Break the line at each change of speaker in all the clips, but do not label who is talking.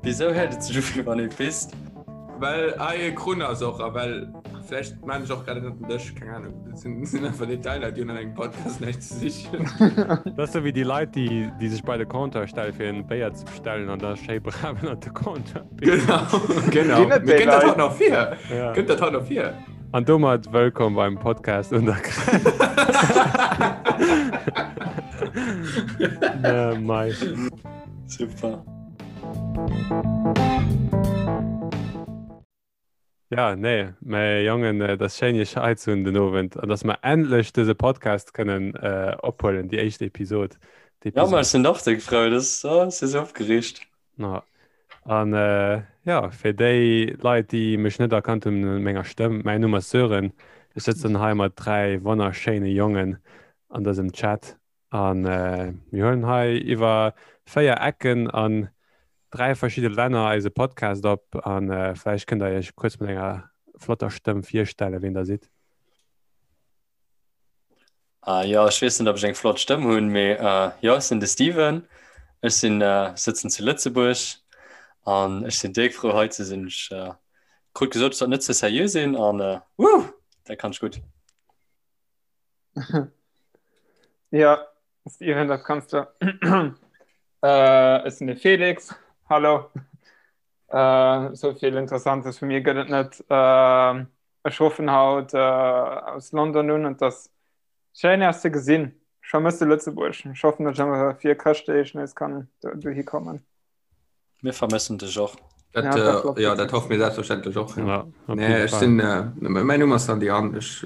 Wisou héiert et sech u wéi wann ee pisst?
Well hei e Krunn ass och a well vläicht maan ech och grad ënnert den Dësch, keng Ahnung. Dat sinn, sinn einfach Detailer, déi hunn an engem Podcast näischt ze sichen.
Dat ass sou wéi déi Leit, déi, déi sech bei de Comptoir stelle fir en Béier ze bestellen an da schéi brav ënnert de Comptoir
pissen. Genau, genau.
Ginn et
Mir
déi
kënnt dat
Leit?
haut nach vir.
Ja.
Kënnt dat haut nach vir.
An domat wëllkomm beim Podcast un der Grenz. Äh, mei.
Super.
Ja, nee, mä Jongen, äh, dat ass schéin iech hei ze hunn den Owend an dass mer endlech dëse Podcast kënnen äh, ophuelen, déi éischt Episod.
Ja, ma ech sinn och déck frou, das oh, si sou opgereegt.
Ja. An äh, ja, fir déi Leit, déi mech net erkannt hunn un menger Stëmm, mäin Numm ass Sören. Ech sëtzen hei mat 3 wonnerschéine Jongen an dësem Chat an äh, mir huelen hei iwwer 4 Ecken an 3 verschidde Länner eise Podcast op an äh, vläicht kënnt der iech kuerz mat enger flotter Stëmm virstellen, wien der sidd.
Ah, jo, ech weess net, ob ech eng flott Stëmm hunn, mee äh, jo, ech sinn de Steven. Ech sinn, äh, sëtzen zu Lëtzebuerg an ech sinn déck frou hei ze sinn. Ech äh, krut gesot, ech sollt net ze seriö sinn an äh, wuh, dat kann ech gutt.
Ja, Steven, dat kanns du. Äh, ech sinn de Felix. Hallo. Äh, sou vill Interessantes vu mir gëtt et net. Äh, Ech ruffen haut aus London un an 't ass schéin Äech ze gesinn. Ech vermësse Lëtzebuerg. Ech hoffen, datt ech awer fir Chrëschtdeeg nees kann dohi kommen.
Mir vermëssen dech och.
Dat,
Ja, dat klappt
jo,
gut.
dat hoffe mir selbstverständlech och.
Ja, op
Nee,
jidde
ech
Fall.
sinn, mäin Numm ass Sandy an ech,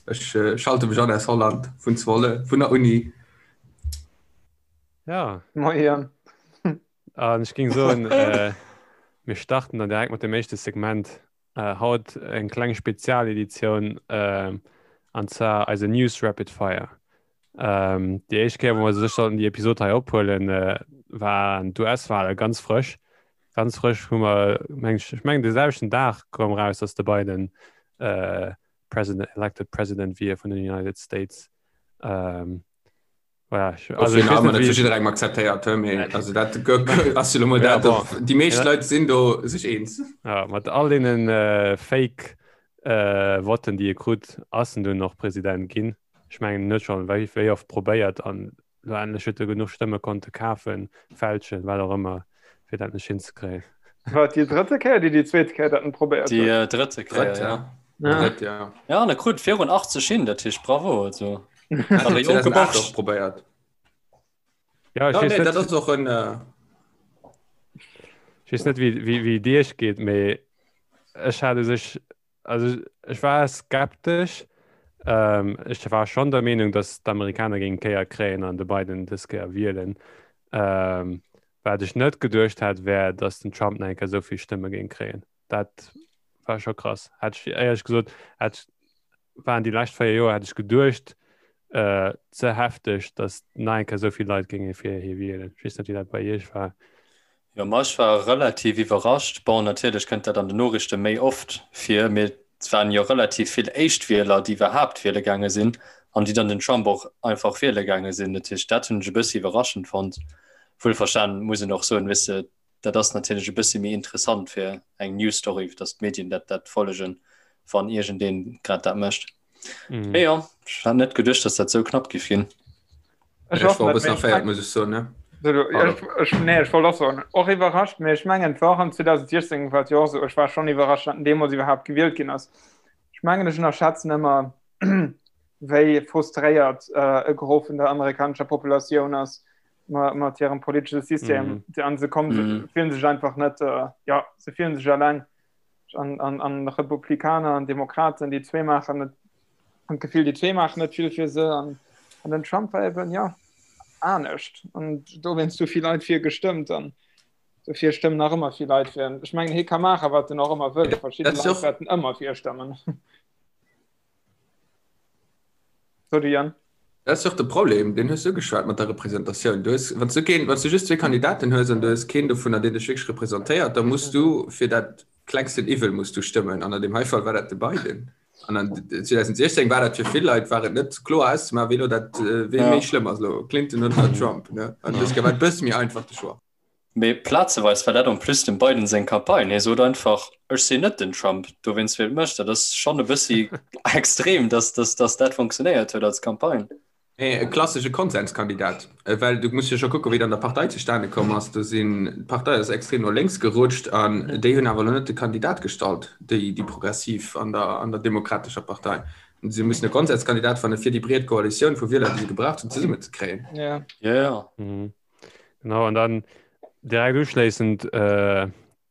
ech schalte mech an aus Holland, vun Zwolle, vun der Uni.
Ja.
Moien.
An ech géing soen, mir starten dann direkt mat dem éischte Segment. Haut eng kleng Spezialeditioun, an zwar eise News Rapid Fire. Déi éischt Kéier, wou mer sech sollten déi Episod hei ophuelen, waren d'US-Wale ganz frësch. Ganz frësch hu mer, meng ech, ech mengen de selwechten Dag koum eraus, datt de Biden President, elected President wier vun den United States. Voilà, ich,
also ich weiß nicht, wie... jidderengem akzeptéiert he, mee also dat ass jo lo mol
Ja,
dat,
bon.
déi meescht
Ja.
Leit sinn do sech eens.
Ja, mat all deenen äh, Fake äh, Votten, déi e krut, ass en dunn och President ginn. Ech mengen, en huet schonn wéi, wéi oft probéiert an lo endlech huet e genuch Stëmme konnte kafen, fälschen, wat och ëmmer, fir dat endlech hinzekréien.
War et déi drëtte Kéier, déi déi zweet Kéier dat en probéiert
Déi
huet?
äh, drëtte Kéier,
Drëtt,
ja.
ja.
Ja.
Drëtt, ja.
Ja, an e krut virun 80 hin, dat heescht bravo. Also.
Hat
Awer jonke
2008
Borscht.
och probéiert.
Ja, ech
Ja,
weess
nee,
net,
dat ass och en. Äh,
ech weess net, wéi, wéi, wéi et iech geet, mee ech hat u sech, also ech war skeptesch. Ähm, ech war schonn der Meenung, datt d'Amerikaner géingen d'Kéier kréien an de Biden dës Kéier wielen. Ähm, wat ech net geduecht hat, wär, datt den Trump nach eng Kéier esou vill Stëmme géing kréien. Dat war scho krass. Hätt ech éierlech gesot, hätt ech waren déi lescht 4 Joer, hätt ech geduecht, äh, ze hefteg, datt nach eng Kéier esou vill Leit géinge fir hie wielen. Ech weess net, wéi dat bei Iech war.
Jo, ma ech war relativ iwwerrascht. Bon, natierlech kënnt dat an den Noriichte méi oft vir, mee et waren jo relativ vill Éischtwieler, déi iwwerhaapt wiele gaange sinn an déi dann den Trump och einfach wiele gaange sinn. Dat heescht, dat hunn ech e bëssi iwwerraschend fonnt. Wuelverstanen muss een och soen, weess de, dat ass natierlech e bëssi méi interessant fir eng News Story, datt d'Medien dat dat follegen, wann iergendeen grad dat mécht. Mm. Mee jo, ech hat net geduecht, datt dat sou knapp giff ginn.
Ech
Ech war
och
e
net,
bëssen
mee ech
erféiert, muss ech soen, ne?
Ech, ech, nee, ech wollt och soen, och iwwerrascht, mee ech mengen, et war och an 2016 war et jo och esou, ech war schonn iwwerrascht, datt en deemools iwwerhaapt gewielt ginn ass. Ech mengen, ech ënnerschätzen ëmmer, wéi frustréiert e Gros vun der amerikanescher Populatioun ass mat hirem politesche System. Mm. An se kommen, mm. fillen sech einfach net, äh, ja, se fillen sech alleng. An, an, an Republikaner an Demokraten, déi zwee maachen net, an d'Gefill, déi zwee maachen net vill fir se. An, an den Trump war eben, ja, anescht. An dowéinst hu vill Leit fir gestëmmt. An dofir stëmmen nach ëmmer vill Leit fir en. Ech mengen, hie ka maachen, wat en och ëmmer wëll. Verschidde Leit wäerten ëmmer fir e stëmmen. Sorry, Jan.
Dat ass jo och de Problem, deen hues du ugeschwat mat der Representatioun. Du hues, wann s du keen, wann s du just zwee Kandidaten hues an du hues keen dovunner, deen dech wierklech representéiert, da muss du fir dat klengsten Iwwel muss du stëmmen. An an deem hei Fall war dat de Biden. An an 2016 war dat fir vill Leit war et net kloer auszemaachen, wee lo dat, wee méi schlëmm ass elo, Clinton oder Trump, ne? An dës Kéier war et e bësse méi einfach de Choix.
Mee plazeweis war dat en plus dem Biden seng Campagne. Hie sot einfach, ech sinn net den Trump, dowéinst wielt mech. Dat ass schonn e bëssi extrem, dass, dass, dass dat funktionéiert huet als Campagne.
Mee e klassesche Konsenskandidat, well du muss jo scho kucken, wéi et an der Partei zustane komm ass. Do sinn, d'Partei ass extrem no lénks gerutscht an déi hunn awer elo net de Kandidat gestallt, déi, déi Progressiv an der, an der Demokratescher Partei. Si mussen e Konsenskandidat fanne fir déi breet Koalitioun vu Wieler, déi se gebraucht hunn, zesummenzekréien.
Ja.
Ja, ja.
Genau, an dann direkt uschléissend äh,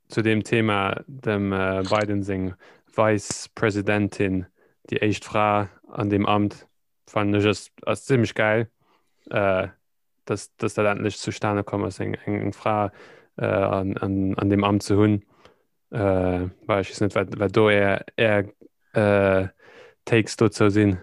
zu dem Thema dem äh, Biden seng Vice-Presidentin, déi éischt Fra an deem Amt, fannen ech ass, ass zimmlech geil, äh, dass, dass dat endlech zustane komm ass, eng, eng, eng Fra äh, an, an, an deem Amt ze hunn. Äh, well ech weess net, wat, wat do är, är äh, Takes dozou sinn.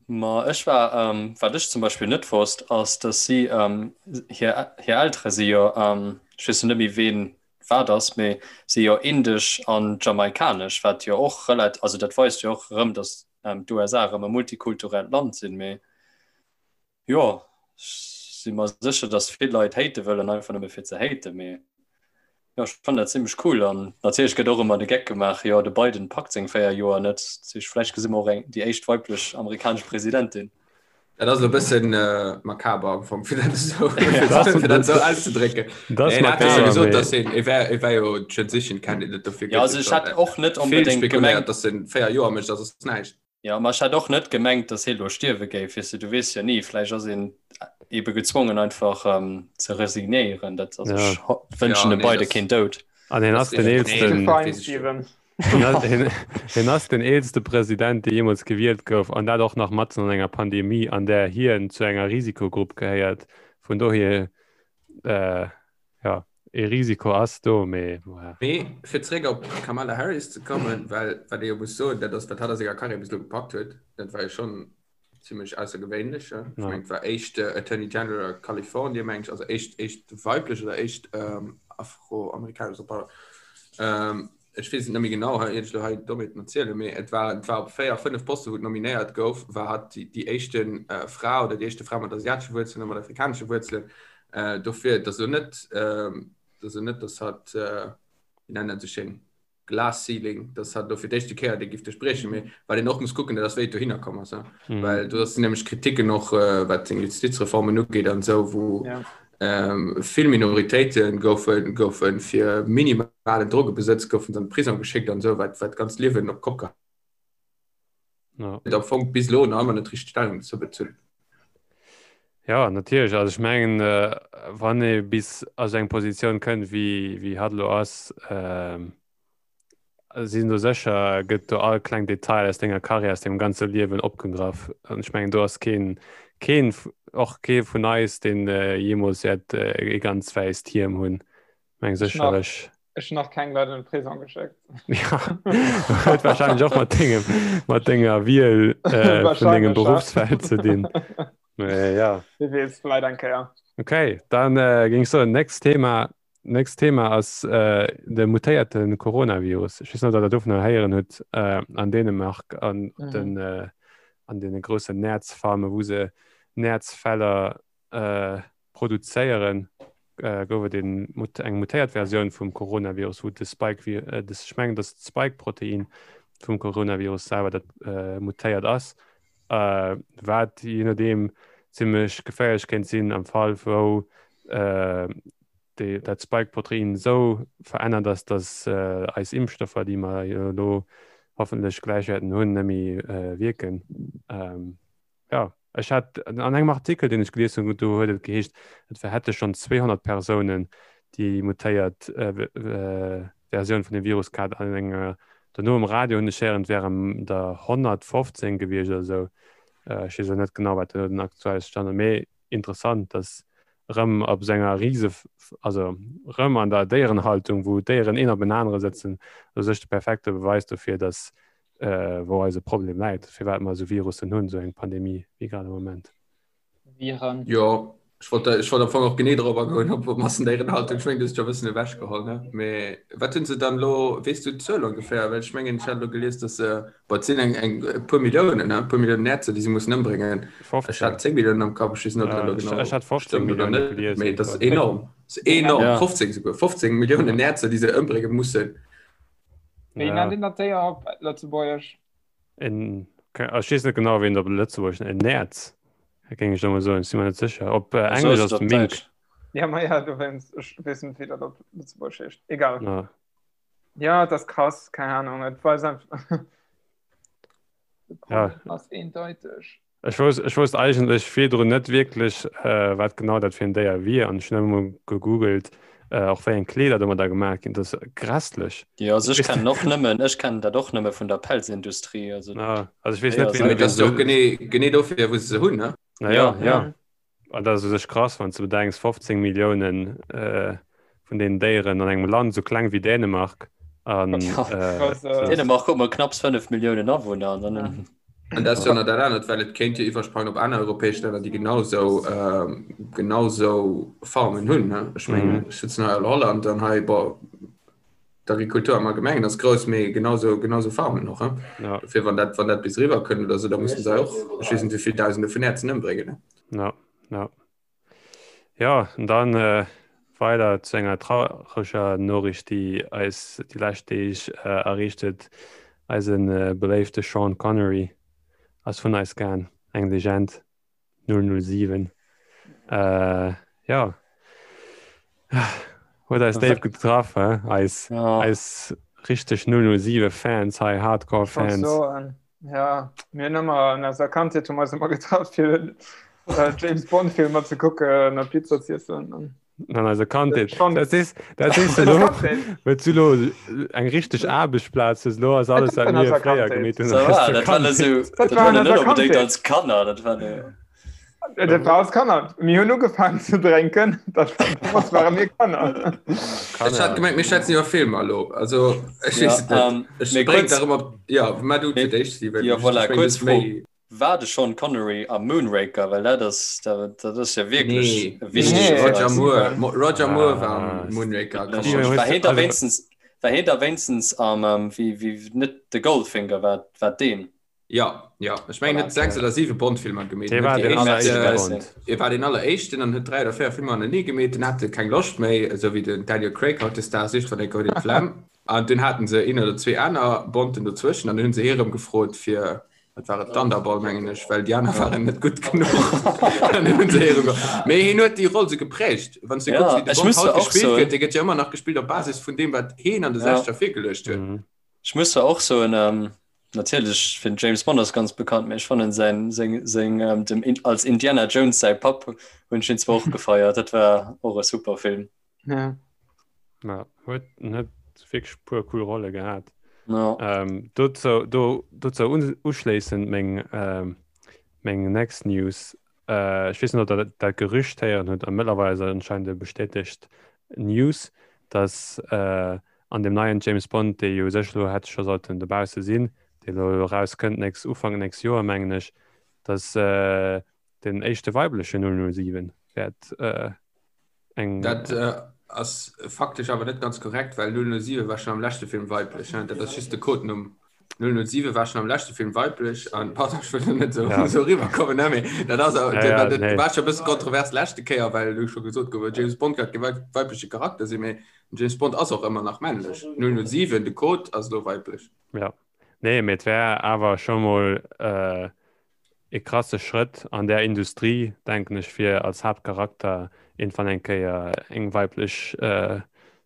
Ma ech war, wat ech zum Beispill net wosst, ass, dass si, hir, hir Eltere si jo, ech weess lo net méi ween wat ass, mee si jo indesch an jamaikanesch, wat jo och relat-, also dat weist jo och erëm, dass d'USA erëm e multikulturellt Land sinn. Mee Jo, ech si mer sécher, dass vill Leit hate wëllen, einfach nëmme fir ze haten, mee jo, ech fannen dat zimmlech cool. An natierlech gëtt och ëmmer de Geck gemaach, jo, de Biden packt seng 4 Joer net, dat heescht, vläicht gesi mer och eng, déi éischt weiblech amerikanesch Presidentin.
Dat ass elo e bëssen makaber am Fong, fir dat esou, fir dat esou auszedrécken. Dat ass makaber, mee. Gesot, dass hien, e wär, e wär jo Transition Candidate, dofir
gëtt jo also ech hätt och net onbedéngt
gemengt. Vill spekuléiert, dass en 4 Joer mécht a soss näischt.
Jo, ma ech hätt och net gemengt, dass hie lo stierwe géif. Weess de, du weess jo ni, vläicht ass een ebe gezwongen einfach ze resignéieren. Dat, also ech wënschen dem Biden keen Doud.
An hien ass den eelsten, hien ass den eelste President, dee jeemools gewielt gouf, an dat och nach matzen an enger Pandemie, an där hien zu enger Risikogrupp gehéiert. Vun dohier, Jo, ee Risiko ass do, mee
voilà. Mee fir zeréck op d'Kamala Harris ze kommen, well wat ee jo muss soen, dat ass, wat hatt a senger Karriär bis elo gepackt huet, dat war jo schonn zimmlech aussergewéinlech. Ech mengen, et war éischt Attorney General a Kalifornien, meng ech, also éischt, éischt weiblech oder éischt afroamerikanesch, pardon, ech weess et net méi genau, hei iert ech elo hei Dommheeten erzielen, mee et war, et war op 4, 5 Poste wou et nominéiert gouf, war hatt déi, déi éischte Fra oder déi éischte Fra mat asiatesche Wuerzelen a mat afrikanesche Wuerzelen. Dofir, et ass elo net, et ass elo net, datt hatt, wéi nennen dat esou schéin, Glass Ceiling, datt hatt elo fir d'éischte Kéier dee giff duerchbriechen, mee wat een och muss kucken, dat ass wéi et dohinner komm ass, well do sinn nämlech Kriticken och wat seng Justizreformen ugeet an esou, wou Vill Minoritéite goufe goufe fir minimalen Drogebesëtz goufen se an de Prisong geschéckt an esou, wat wat d'ganzt Liewen op d'Kopp geheit huet. Am Fong bis elo nach ëmmer net richteg Stellung dozou bezunn.
Jo, natierlech. Also ech mengen, wann ee bis a sou eng Positioun kënnt, wéi wéi hatt elo ass, Sinn do sécher gëtt do all kleng Detail aus denger Karriär, aus dengem ganze Liewen opgegraff. An ech mengen do ass keen, keen, och kee vun eis, deen jeemools wäert ee ganz wäisst Hiem hunn. Meng sécherlech.
Ech hunn nach keng Leit an de Prisong geschéckt.
Ja, huet wahrscheinlech och mat dengem, mat denger Wiel vun dengem Beruffsfeld ze dinn. Mee ja.
Wie weess, vläit eng Kéier.
Okay, dann géing ech soen, nächst Thema. Nächst Thema ass de mutéierte Coronavirus. Ech weess net, ob der dovunner héieren hutt an Dänemark an op den an deene groussen Näerzfarme wou se Näerzfeller produzéieren, gouf et een eng mutéiert Versioun vum Coronavirus, wou de Spike, ech mengen, datt d'Spike-Protein vum Coronavirus selwer dat mutéiert ass, wat jee nodeem zimmlech geféierlech kéint sinn am Fall wou déi, dat Spike-Protein esou verännert ass, datt eis Impfstoffer, déi mer jo elo hoffentlech gläich wäerten hunn, net méi wierken. Jo, ech hat an engem Artikel, deen ech gelies hunn, do huet et geheescht, et hätte schonn 200 Persounen déi mutéiert Versioun vun dem Virus gehat. An enger, dono um Radio hunn ech héieren, et wären der 115 gewiescht oder esou. Ech weess elo net genau, wat elo den aktuelle Stand ass, mee interessant, dass erëm op esou enger Rise, also erëm an der Déierenhaltung, wou d'Déieren een op en anere sëtzen, u sech de perfekte Beweis dofir, dass wou eise Problem läit, firwat mer esou Virussen hunn, esou eng Pandemie wéi grad am Moment.
Viren.
Jo, ech wollt, ech wollt am Fong och genee drop agoen, op Massendéierenhaltung. Ech mengen, du hues et scho e bëssen ewechgeholl, ne? Mee wat hunn se dann elo, weess du d'Zuel ongeféier? Well ech mengen, ech hat elo gelies, dass se, bon, et sinn eng, eng e puer Milliounen, ne? E puer Milliounen Näerzer, déi se mussen ëmbréngen. Ech
15.
hat 10 Milliounen am Kapp, ech weess net, ob dat elo
genau Ech hat 15
stëmmt oder
Millioune
net,
gelies
mee et ass
iergendwou.
enorm. Das ist enorm. Ja. 15 souguer. 15 Milliounen Näerzer, déi se ëmbrénge mussen.
Wéi nennt een dat Déier op Lëtzebuergesch?
En, ech weess net genau, wéi een dat op Lëtzebuergesch nennt. En Näerz, géing ech elo mol soen. Ech si mer net sécher. Op Englesch ass et Mink.
Ja, ma ja, dowéinst. Ech weess net, wéi dat op Lëtzebuergesch heescht. Egal. Ja. Ja, dat ass krass. Keng Ahnung. Et weist einfach. De Problem ja. ass eendeiteg.
Ech wousst, ech wousst eigentlech virdrun net wierklech, äh, wat genau dat fir en Déier wier an ech hunn ëmmer gegoogelt, äh, och wéi eng Kleeder domadder gemaach ginn. Dat ass grässlech.
Jo, also ech kennen och nëmmen, ech kennen dat och nëmme vun der Pelzindustrie.
Also, ah, also ech weess net,
wéi. Dat ass jo och genee, genee dofir, wou se se hunn, ne?
Na ja, ja. ja. An dat ass u sech krass, wann s de bedenks, 15 Milliounen vun deenen Déieren an engem Land esou kleng wéi Dänemark. An,
äh, Dänemark huet mol knapps 5 Milliounen Awunner. An
dann An dat ass jo nach dat anert, well et kéint jo iwwersprangen op aner europäesch Länner, déi genau sou, genau sou Farmen hunn. Ech mengen, ech sëtzen hei an Holland an hei, bon, d'Agrikultur am Allgemengen ass grouss, mee genau sou, genau sou Farmen och.
Ja.
Dofir, wann dat, wann dat bis eriwwer kënnt oder sou, da mussen se och, ech weess net wéi vill Dausende vun Näerzen ëmbréngen.
Ja, ja. Ja, an dann äh, weider zu enger traureger Noriicht, déi eis déi lescht Deeg äh, erreecht huet. Eisen äh, beléifte Sean Connery ass vun eis gaang, eng Legend. 007 äh, ja huet eis déif getraff he? Eis, ja. eis richteg 007 Fans hei Hardcore Fans.
So, ja mir hunn ëmmer an eiser Kandheet hu mer eis ëmmer getraff fir äh, James Bond Filmer ze kucken a Pizza z'iessen.
An An eiser Kandheet. Dat is, dat is elo, huet du lo eng richteg Aarbechtsplaz hues, lo ass alles wat mir fréier gemeet hunn.
Dat war net esou, dat war net onbedéngt als Kanner, dat war ne.
Dat war als Kanner. Mir hunn ugefaangen ze drénken, dat war, ware mir Kanner.
Ech hat gemengt, mir schwätzen iwwer Filmer elo. Also, ech weess et net. Ech bréngt der ëmmer, jo, mä du fir d'éischt, Steven.
Jo, voilà, kuerz Fro. War de Sean Connery am Moonraker? Well dat ass, dat ass jo wierklech
e wichtege Nee, Roger Moore, Roger Moore war am Moonraker.
War hien da wéinstens, war hien da wéinstens am, wéi, wéi, net de Goldfinger, war, war deen?
Ja, ja, ech mengen, huet 6 oder 7 Bond-Filmer gemeet.
Dee war den alleréischte Bond.
Hie war deen alleréischten an huet 3 oder 4 Filmer hannertenee gemeet. Dunn hat e keng Loscht méi, esou wéi den Daniel Craig hautdesdaags, iergendwann eng Kéier huet een d'Flemm. An dunn haten se een oder zwee aner Bonden dozwëschen an dunn hunn se hie erëm gefrot fir, wat war et, Thunderball mengen ech, well déi aner waren net gutt genuch. An dunn hunn se hie erëm ge-. Mee hien huet déi Roll sou geprägt. Wann s de kucks, wéi de Bond haut gespillt gëtt, dee gëtt jo ëmmer nach gespillt op Basis vun deem, wat hien an de Sechzeger virgeluecht huet.
Ech muss zwar och soen, natierlech fir den James Bond ass ganz bekannt, mee ech fannen säin, seng, seng, dem, als Indiana Jones säi Papp hunn ech hien zwar och gefeiert. Dat war och e super Film.
Ja.
Ja, huet net wierklech puer cool Rolle gehat.
Ja.
Ähm, dozou, do, dozou un, uschléissend meng, ähm, meng next News. Äh, ech weess net, ob der dat, dat Gerücht héieren hutt, a mëttlerweil ass et anscheinend e bestätegt News, dass äh, an dem neien James Bond, dee jo u sech elo hätt scho sollten dobausse sinn, dee elo erauskënnt nächst, Ufank nächst Joer, mengen ech, dass äh, den éischte weibleche 007 wäert äh,
eng. Dat äh, ass faktesch awer net ganz korrekt, well 007 war schon am leschte Film weiblech. Ne? Dat ass just de Codenumm. 007 war schon am leschte Film weiblech an pardon, ech wëll net so, ja. so riwwerkommen, ne? Mee dat ass ja, ja, dat, nee. war schon e bësse kontrovers leschte Kéier, well du scho gesot gouf, James Bond hat ke weibleche Charakter sinn, mee James Bond ass och ëmmer nach männlech. 007, de Code ass lo weiblech.
Ja. Nee, mee et wär awer scho mol äh, e krasse Schrëtt an där Industrie, denken ech, fir als Haaptcharakter iergendwann eng Kéier eng weiblech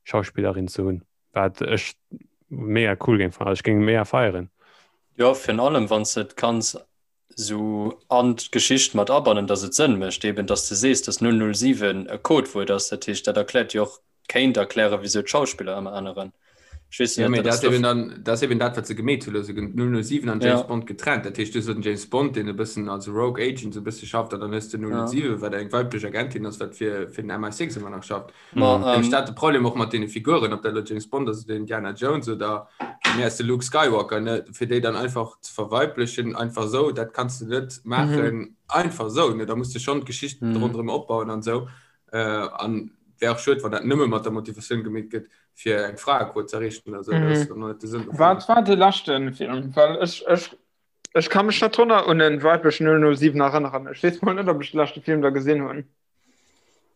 Schauspillerin ze hunn, wat ech mega cool géing fannen. Also ech géing mega feieren.
Jo, virun allem wann s de et kanns esou an d'Geschicht mat abannen, datt et Sënn mécht, eben datt s de sees, datt 007 e Codewuert ass. Dat heescht, dat erkläert jo och kéint erklären, wieso d'Schauspiller ëmmer änneren.
Ech weess ja, net, dat eben dann, dat eben dat wat se gemeet hunn, also 007 an James ja. Bond getrennt. Dat heescht, du hues den James Bond, deen e bëssen als Rogue Agent so bësse schafft, an dann hues du 007, ja. wat eng weiblech Agentin ass, wat fir, fir den MI6 ëmmer nach schafft. Ma, ähm, ähm, dat de Problem och mat deene Figuren, ob dat lo James Bond ass oder Indiana Jones oder mir ass de Luke Skywalker, ne, fir déi dann einfach ze verweiblechen, einfach sou, dat kanns du net maachen, mhm. einfach sou, ne, da musst du schon d'Geschicht mhm. ronderëm opbauen an sou. Äh, an wär och schued, wann dat nëmme mat der Motivatioun gemeet gëtt, fir eng Fraequot ze erreechen oder sou.
Dat ass dann net de Sënn dovun. Wat war de leschten Film? Well ech, ech, ech ka mech net drun un en weiblechen 007 erënneren. Ech weess mol net, ob ech de leschte Film da gesinn hunn.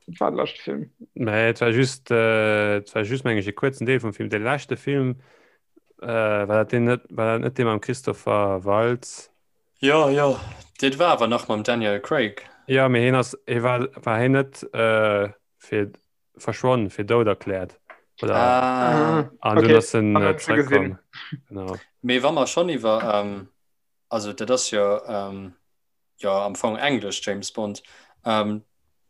Dat war de leschte Film.
Nee, et war just, äh, et war just meng ech e kuerzen Deel vum Film. De leschte Film, äh, war dat deen net, war dat net dee mam Christopher Waltz?
Jo, jo, dat war awer nach mam Daniel Craig.
Jo, mee hien ass, hie war, war hien net äh, fir verschwonn, fir dout erkläert? Oder?
Ah.
An dunn
Okay,
ass en
dann
äh,
hunn ech se gesinn.
zeréckkomm. Genau.
Mee wa mer schonn iwwer, ähm, also dat ass jo, ähm, jo am Fong englesch James Bond. Ähm,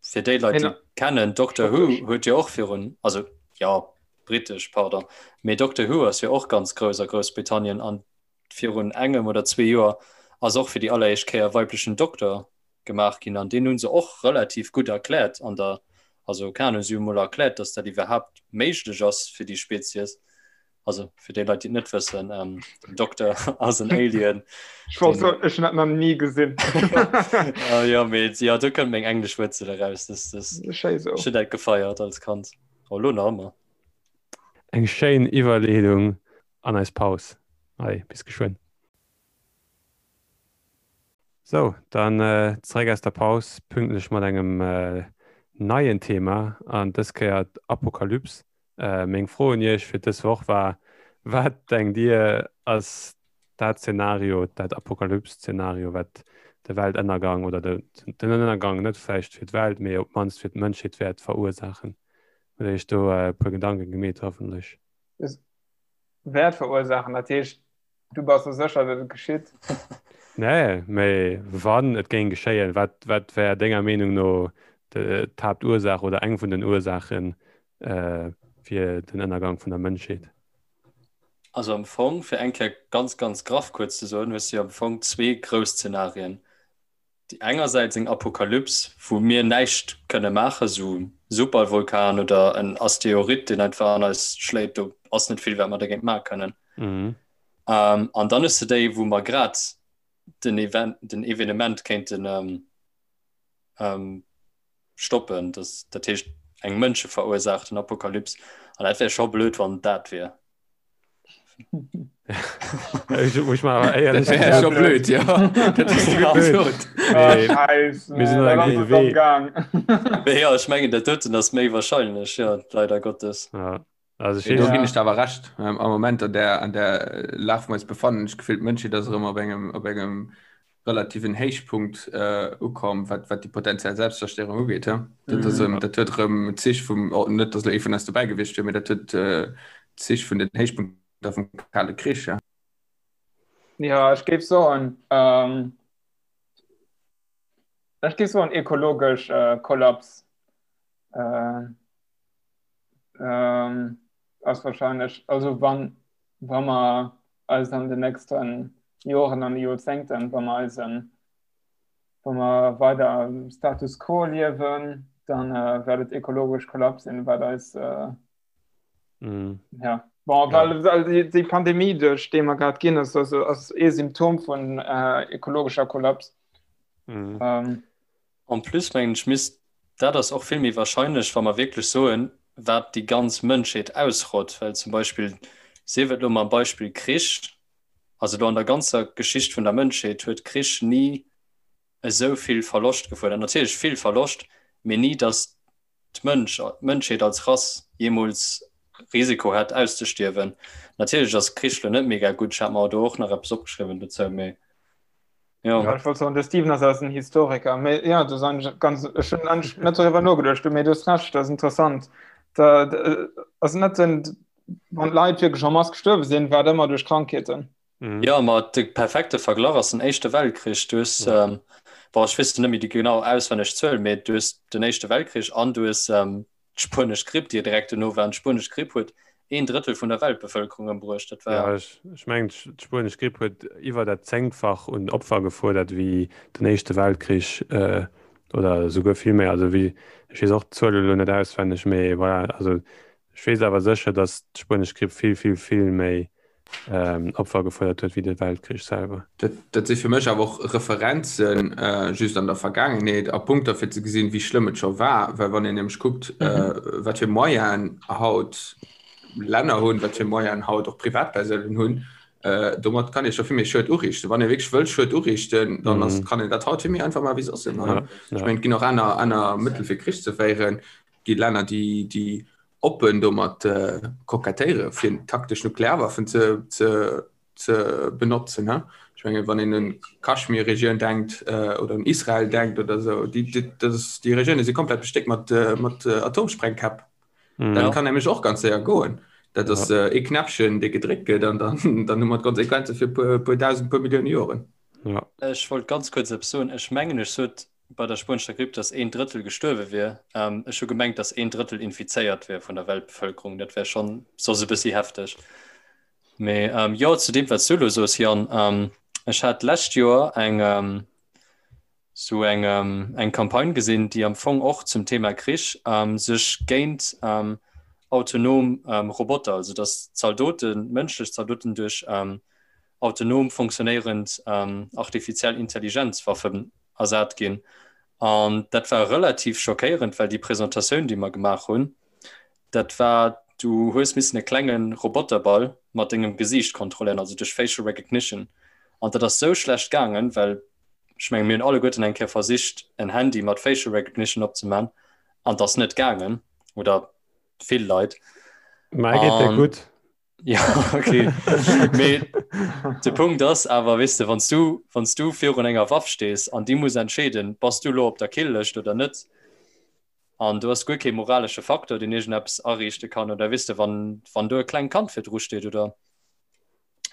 fir déi Leit, déi kennen, Doctor Who huet jo och virun, also ja britesch, pardon, mee Doctor Who ass jo och ganz grouss a Groussbritannien an virun engem oder zwee Joer ass och fir déi alleréischt Kéier weiblechen Dokter gemaach ginn an deen hu se och relativ gutt erkläert an der, also keng Ahnung, si hu mol erkläert, datt dat iwwerhaapt méiglech ass fir déi Spezies. Also fir déi Leit, déi et net wëssen, ähm, den Dokter ass en Alien.
Ech wollt soen, ech hunn dat nach ni gesinn.
Ah, ja, mee, ja, do kënnt meng englesch Wuerzel eraus. Das, das,
Schéi sou.
ech hunn dat gefeiert als Kand. Oh, lo nach ëmmer.
Eng schéin Iwwerleedung an eis Paus. Allez, bis geschwënn. Sou, dann zeréck aus der Paus, pünktlech mat engem neien Thema an dës Kéier d'Apokalyps. Meng Fro un Iech fir dës Woch war, Wat denkt Dir ass dat Zenario, dat Apokalyps-Zenario, wat de Weltënnergang oder den Ënnergang net vläicht fir d'Welt, mee op d'mannst fir d'Mënschheet wäert verursaachen? Hutt Dir Iech do e puer Gedanke gemeet hoffentlech?
Wäert verursaachen, dat heescht Du bass der sécher, datt et geschitt?
Nee, mee wann et géing geschéien, wat, wat wär denger Meenung no d'Haaptursaach oder eng vun den Ursaache fir den Ënnergang vun der Mënschheet?
Also am Fong, fir eng Kéier ganz, ganz graff kuerz ze soen, hues de jo am Fong zwee grouss Zenarien. Déi engersäits eng Apokalyps, wou mir näischt kënne maachen, esou e Supervulkan oder en Asteroid, deen einfach an eis schléit, do ass net vill, wat mer dergéint maache kënnen. An dann hues de déi, wou mer grad den Event, den Evenement kéinten stoppen, dat heescht eng mënscheverursaachten Apokalyps. An dat wär scho blöd, wann et dat wier.
Ech mar éierlech
Dat wär scho blöd, ja. Dat hues du gutt gesot.
Ah, Scheiss,
Mir sinn op engem gudde Wee.
Gang.
Mee jo, ech mengen, dat doten ass méi wahrscheinlech, jo, leider Gottes.
Ja. Also ech
Mee do
weess,
ginn ech der awer Recht. Am Moment an där, an där Lag, wou mer eis befannen, ech d'Gefill, d'Mënschheet ass erëm op engem, op engem relativen Héichpunkt ukomm, wat, wat déi potenziell Selbstzerstéierung ugeet. He? Dat ass erëm, dat huet erëm Zich vum, oh, net datt elo ee vun eis dobäi gewiescht wier, mee dat huet Zich vun den Héichpunkter vum Kale Krich. He?
Ja, ech géif soen, ech géif soen ekologesch Kollaps ass wahrscheinlech, also wann, wa mer eis an den nächsten Joren an de Joerzéngten, wa mer eisen, wa mer weider am Status quo liewen, dann äh, wäert et ekologesch Kollaps sinn, wat eis äh,
mm.
ja. Bon,
Ja.
well, well déi, déi Pandemie, duerch déi mer grad ginn, ass, ass, ass ee Symptom vun äh, ekologescher Kollaps.
Mm.
Ähm,
En plus mengen ech misst, dat ass och vill méi wahrscheinlech, wa mer wierklech soen, wat déi ganz Mënschheet ausrott, well zum Beispill, sief et elo mam Beispill Krich, also elo an der ganzer Geschicht vun der Mënschheet huet Krich ni esou vill Verloscht gefuerdert, natierlech vill Verloscht, mee ni datt d'Mënsch, d'Mënschheet als Rass jeemools Risiko hätt auszestierwen. Natierlech ass Krich elo net mega gutt, ech hat mer do och nach eppes opgeschriwwen dozou, mee.
Ja. Ja, ich wollt soen, de Steven ass eisen Historiker. Mee, ja, das ist eigentlich ganz, ech hunn eigentlich net darüber nogeduecht, mee du hast recht, das ist interessant. Da, da, also net den, wann d'Leit wirklich en masse gestuerwe sinn, war et ëmmer duerch Krankheeten.
Mhm.
Ja, ma de perfekte Verglach ass den Éischte Weltkrich. Du hues,
Ja.
ähm, boah, ech weess net méi déi genau auswenneg Zuel, mee du hues den Éischte Weltkrich an du hues ähm, d'spuenesch Gripp, déi direkt dono war. An d'spuenesch Gripp huet een Drëttel vun der Weltbevëlkerung ëmbruecht. Dat war.
Ja, ech, ech mengen, d'spuenesch Gripp huet iwwer dat Zéngtfach un Opfer gefuerdert wéi den Éischte Weltkrich, oder esouguer vill méi. Also wéi, ech weess och d'Zuel elo net auswenneg, mee voilà, also ech weess awer sécher, datt d'spuenesch Gripp vill, vill, vill méi Opfer gefuerdert huet wéi de Weltkrich selwer.
Dat si fir mech awer och Referenzen just an der Vergaangenheet a Punkter fir ze gesinn, wéi schlëmm et scho war. Well wann een nämlech kuckt, wat fir Moyenen haut Länner hunn, wat fir Moyenen haut och Privatpersounen hunn. Äh, domat kann ee scho vill méi Schued uriichten. Wann ee wierklech wëll Schued uriichten, dann ass, mhm. kann een dat haut vill méi einfach maachen wéi soss ëmmer. Ja, ja. Ech mengen, et ginn och aner, aner Mëttel fir Krich ze féieren. Et gi Länner, déi, déi oppen domat äh, kokettéiere fir taktesch Nuklearwaffen ze, ze, ze benotzen. Ne? Ech mengen, wann een un Kaschmir-Regioun denkt äh, oder un Israel denkt oder sou, déi, déi, das ist, déi Regioune si komplett bestéckt mat, äh, mat äh, Atomsprengkäpp. Mhm. Dat kann nämlech och ganz séier goen. Dat ass ja. äh, e Knäppchen, dee gedréckt gëtt an dann, dann hu mer d'Konsequenze fir puer, puer dausend, puer Millioune Joren.
Ja. Ech wollt ganz kuerz eppes soen. Ech mengen, ech sot bei der spuenescher Gripp, dass een Drëttel gestuerwe wier. Ähm, ech hu gemengt, dass een Drëttel infizéiert wier vun der Weltbevëlkerung. Dat wär schonn soss e bëssi hefteg. Mee ähm, jo, zu deem, wat s du elo soos, Yann, ähm, ech hat d'lescht Joer eng, ähm, sou eng, eng Campagne gesinn, déi am Fong och zum Thema Krich sech géint autonom Roboter, also datt Zaldoten, mënschlech Zaldoten duerch autonom funktionéierend artifiziell Intelligenzwaffen ersat ginn. An dat war relativ schockéierend, well déi Presentatioun, déi mer gemaach hunn, dat war, du hues missen e klenge Roboterball mat dengem Gesiicht kontrolléieren, also duerch Facial Recognition. An dat ass sou schlecht gaangen, well Ech mengen, mir hunn alleguerten eng Kéier versicht, en Handy mat Facial Recognition opzemaachen, an 't ass net gaangen, oder vill Leit.
Mei geet der gutt.
Ja, okay. Mee de Punkt ass awer, weess de, wann s du, wann s du virun enger Waff stees an déi muss entscheeden, bass du elo op der Kill-Lëscht oder net, an do ass guer kee moralesche Faktor, deen iergendeppes ariichte kann, oder weess de, wann, wann do e klengt Kand virdru steet, oder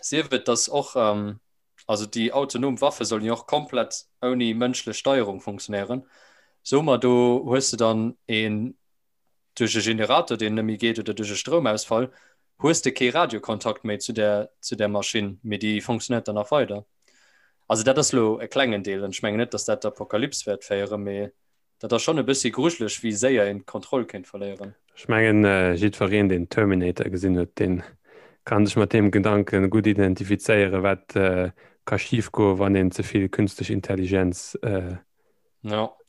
sief et, dass och, Also déi autonom Waffe sollen jo och komplett ouni mënschlech Steierung funktionéieren. Soe mer, do hues de dann een duerch e Generator, deen net méi geet oder duerch e Stroumausfall, hues de kee Radiokontakt méi zu där, zu där Maschinn, mee déi funktionéiert dann nach weider. Also dat ass elo e klengen Deel an ech mengen net, datt dat d'Apokalyps wäert féieren, mee Dat ass schonn e bëssi grujeleg, wéi séier een d'Kontroll kéint verléieren.
Ech mengen, jiddwereen, deen Terminator gesinn huet, dee ka sech mat deem Gedanke gutt identifizéieren, wat ka schifgoen, wann een ze vill künstlech Intelligenz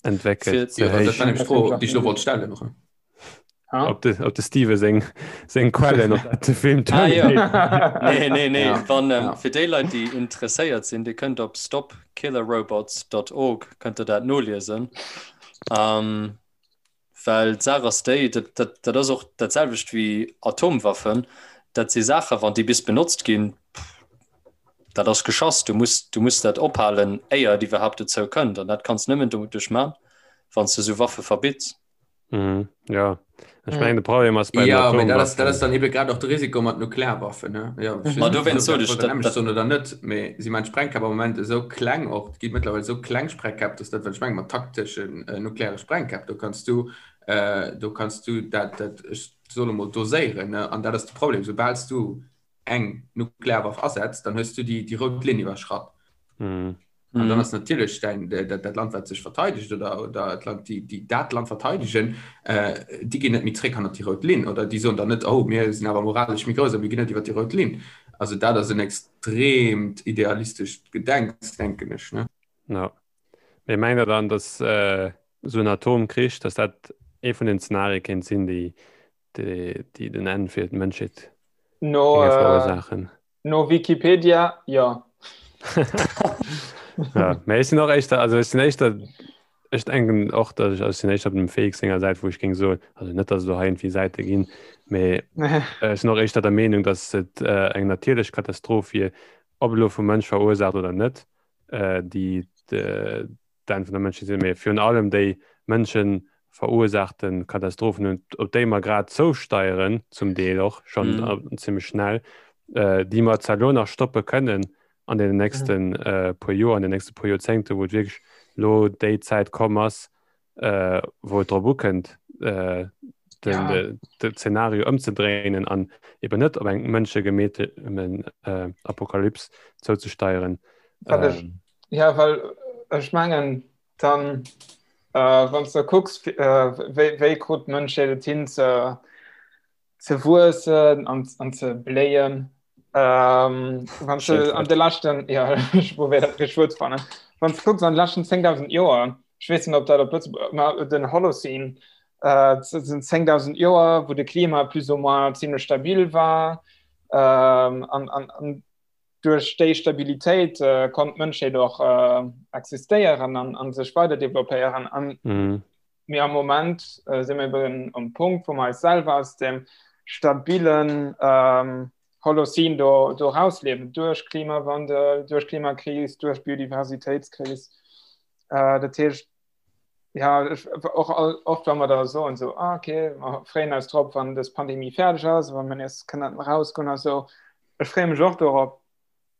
entwéckelt.
Jo, dat war nämlech d'Fro, déi ech elo wollt stellen.
Op de, op de Steve seng, seng Quellen op dat de Film
ah, ja. Nee, nee, nee. Ja. Wann, ähm, ja. Fir déi Leit, déi interesséiert sinn, Dir kënnt op stopkillerrobots.org kënnt der dat noliesen. Ähm, well d'Saach ass déi, dat, dat, dat ass och dat selwecht wéi Atomwaffen. Dat si Saachen, wann déi bis benotzt ginn, dat ass geschass. Du muss, du muss dat ophalen, éier et iwwerhaapt dozou kënnt. An dat kanns nëmmen doduerch man, wann s du sou Waffe verbitts.
Mhm, ja. Ech mengen, de Problem ass
bei den Ja, mee dat ass, dat ass dann ebe grad och de Risiko mat Nuklearwaffen, ne? Ja, ech weess
Ma
net, ob
dowéinst
dat
sot ech,
wollt
dat,
nämlech
dat,
soen oder net, mee si man Sprengkäpp am Moment esou kleng och, et gi mëttlerweil esou kleng Sprengkäpp, dass dat, wat ech mengen mat takteschen äh, nukleare Sprengkäpp, do kanns du, äh, do kanns du dat, dat, ech soen emol, doséieren, ne? An dat ass de Problem, soubal s du eng Nuklearwaff asetz, dann hues du déi, déi rout Linn iwwerschratt.
Mhm.
An dann ass natierlech dein, dat, dat Land, wat sech verteidegt oder, oder d'Land, déi, déi dat Land verteidegen, äh, déi ginn net méi zréck hannert déi rout Linn oder déi soen dann net, oh, mir sinn awer moralesch méi grouss a mir ginn net iwwer déi rout Linn. Also dat ass en extreemt idealistescht Gedenks, denken ech, ne?
Ja. Mee mengt Der dann, dass äh, esou en Atomkrich, dass dat ee vun den Zenarie kéint sinn, déi, déi, déi den Enn fir d'Mënschheet
No,
géinge
äh,
verursaachen?
No Wikipedia, jo.
Ja, mä ech sinn och éischter, also ech sinn éischter, ech denken och, datt ech, also ech sinn éischter op dem Felix senger Säit, wou ech géing soen, also net, datt et elo hei iergendwéi Säite ginn, mä ech sinn och éischter der Meenung, datt et eng natierlech Katastroph wier, ob elo vum Mënsch verursaacht oder net, déi d'Enn vun der Mënschheet sinn, mee virun allem déi Mënsche verursaachte Katastrophen, op déi mer grad zousteieren, zum Deel och schonn mm. zimmlech schnell, äh, déi mer zwar lo nach stoppe kënnen an den nächsten mm. äh, puer Joer, an den nächste puer Joerzéngte, wou et wierklech lo déi Zäit komm ass, äh, wou et drop ukënnt, äh, den, ja. de, de Szenario ëmzedréinen an eben net op eng mënschegemeete äh, Apokalyps zouzesteieren.
Ähm, Ja, well ech mengen dann äh, wann du kucks äh, wéi, wéi krut d'Mënschheet et hin ze, ze wuessen an, an ze bléien. Ähm, wann du an de leschten ja, ech probéier dat richteg Wuert ze fannen. Wann du kucks an de leschten 10.000 Joer, ech weess net ob dat op Lëtzebuerg, ma den Holocene äh, sinn 10.000 Joer, wou de Klima plus ou moins zimmlech stabil war ähm, an, an, an. Duerch déi Stabilitéit konnt d'Mënschheet och existéieren an sech weider developpéieren. An mir am Moment si mir eben um Punkt, wou mer eis selwer aus dem stabilen Holocene do do rausliewen, duerch Klimawandel, duerch Klimakris, duerch Biodiversitéitskris. Dat heescht, ja, ech, och all, oft wa mer da soen so, ah, okay, mer freeën eis drop, wann dës Pandemie fäerdeg ass, wann mer nees kënnen rausgoen a sou. Ech freeë mech och dorop.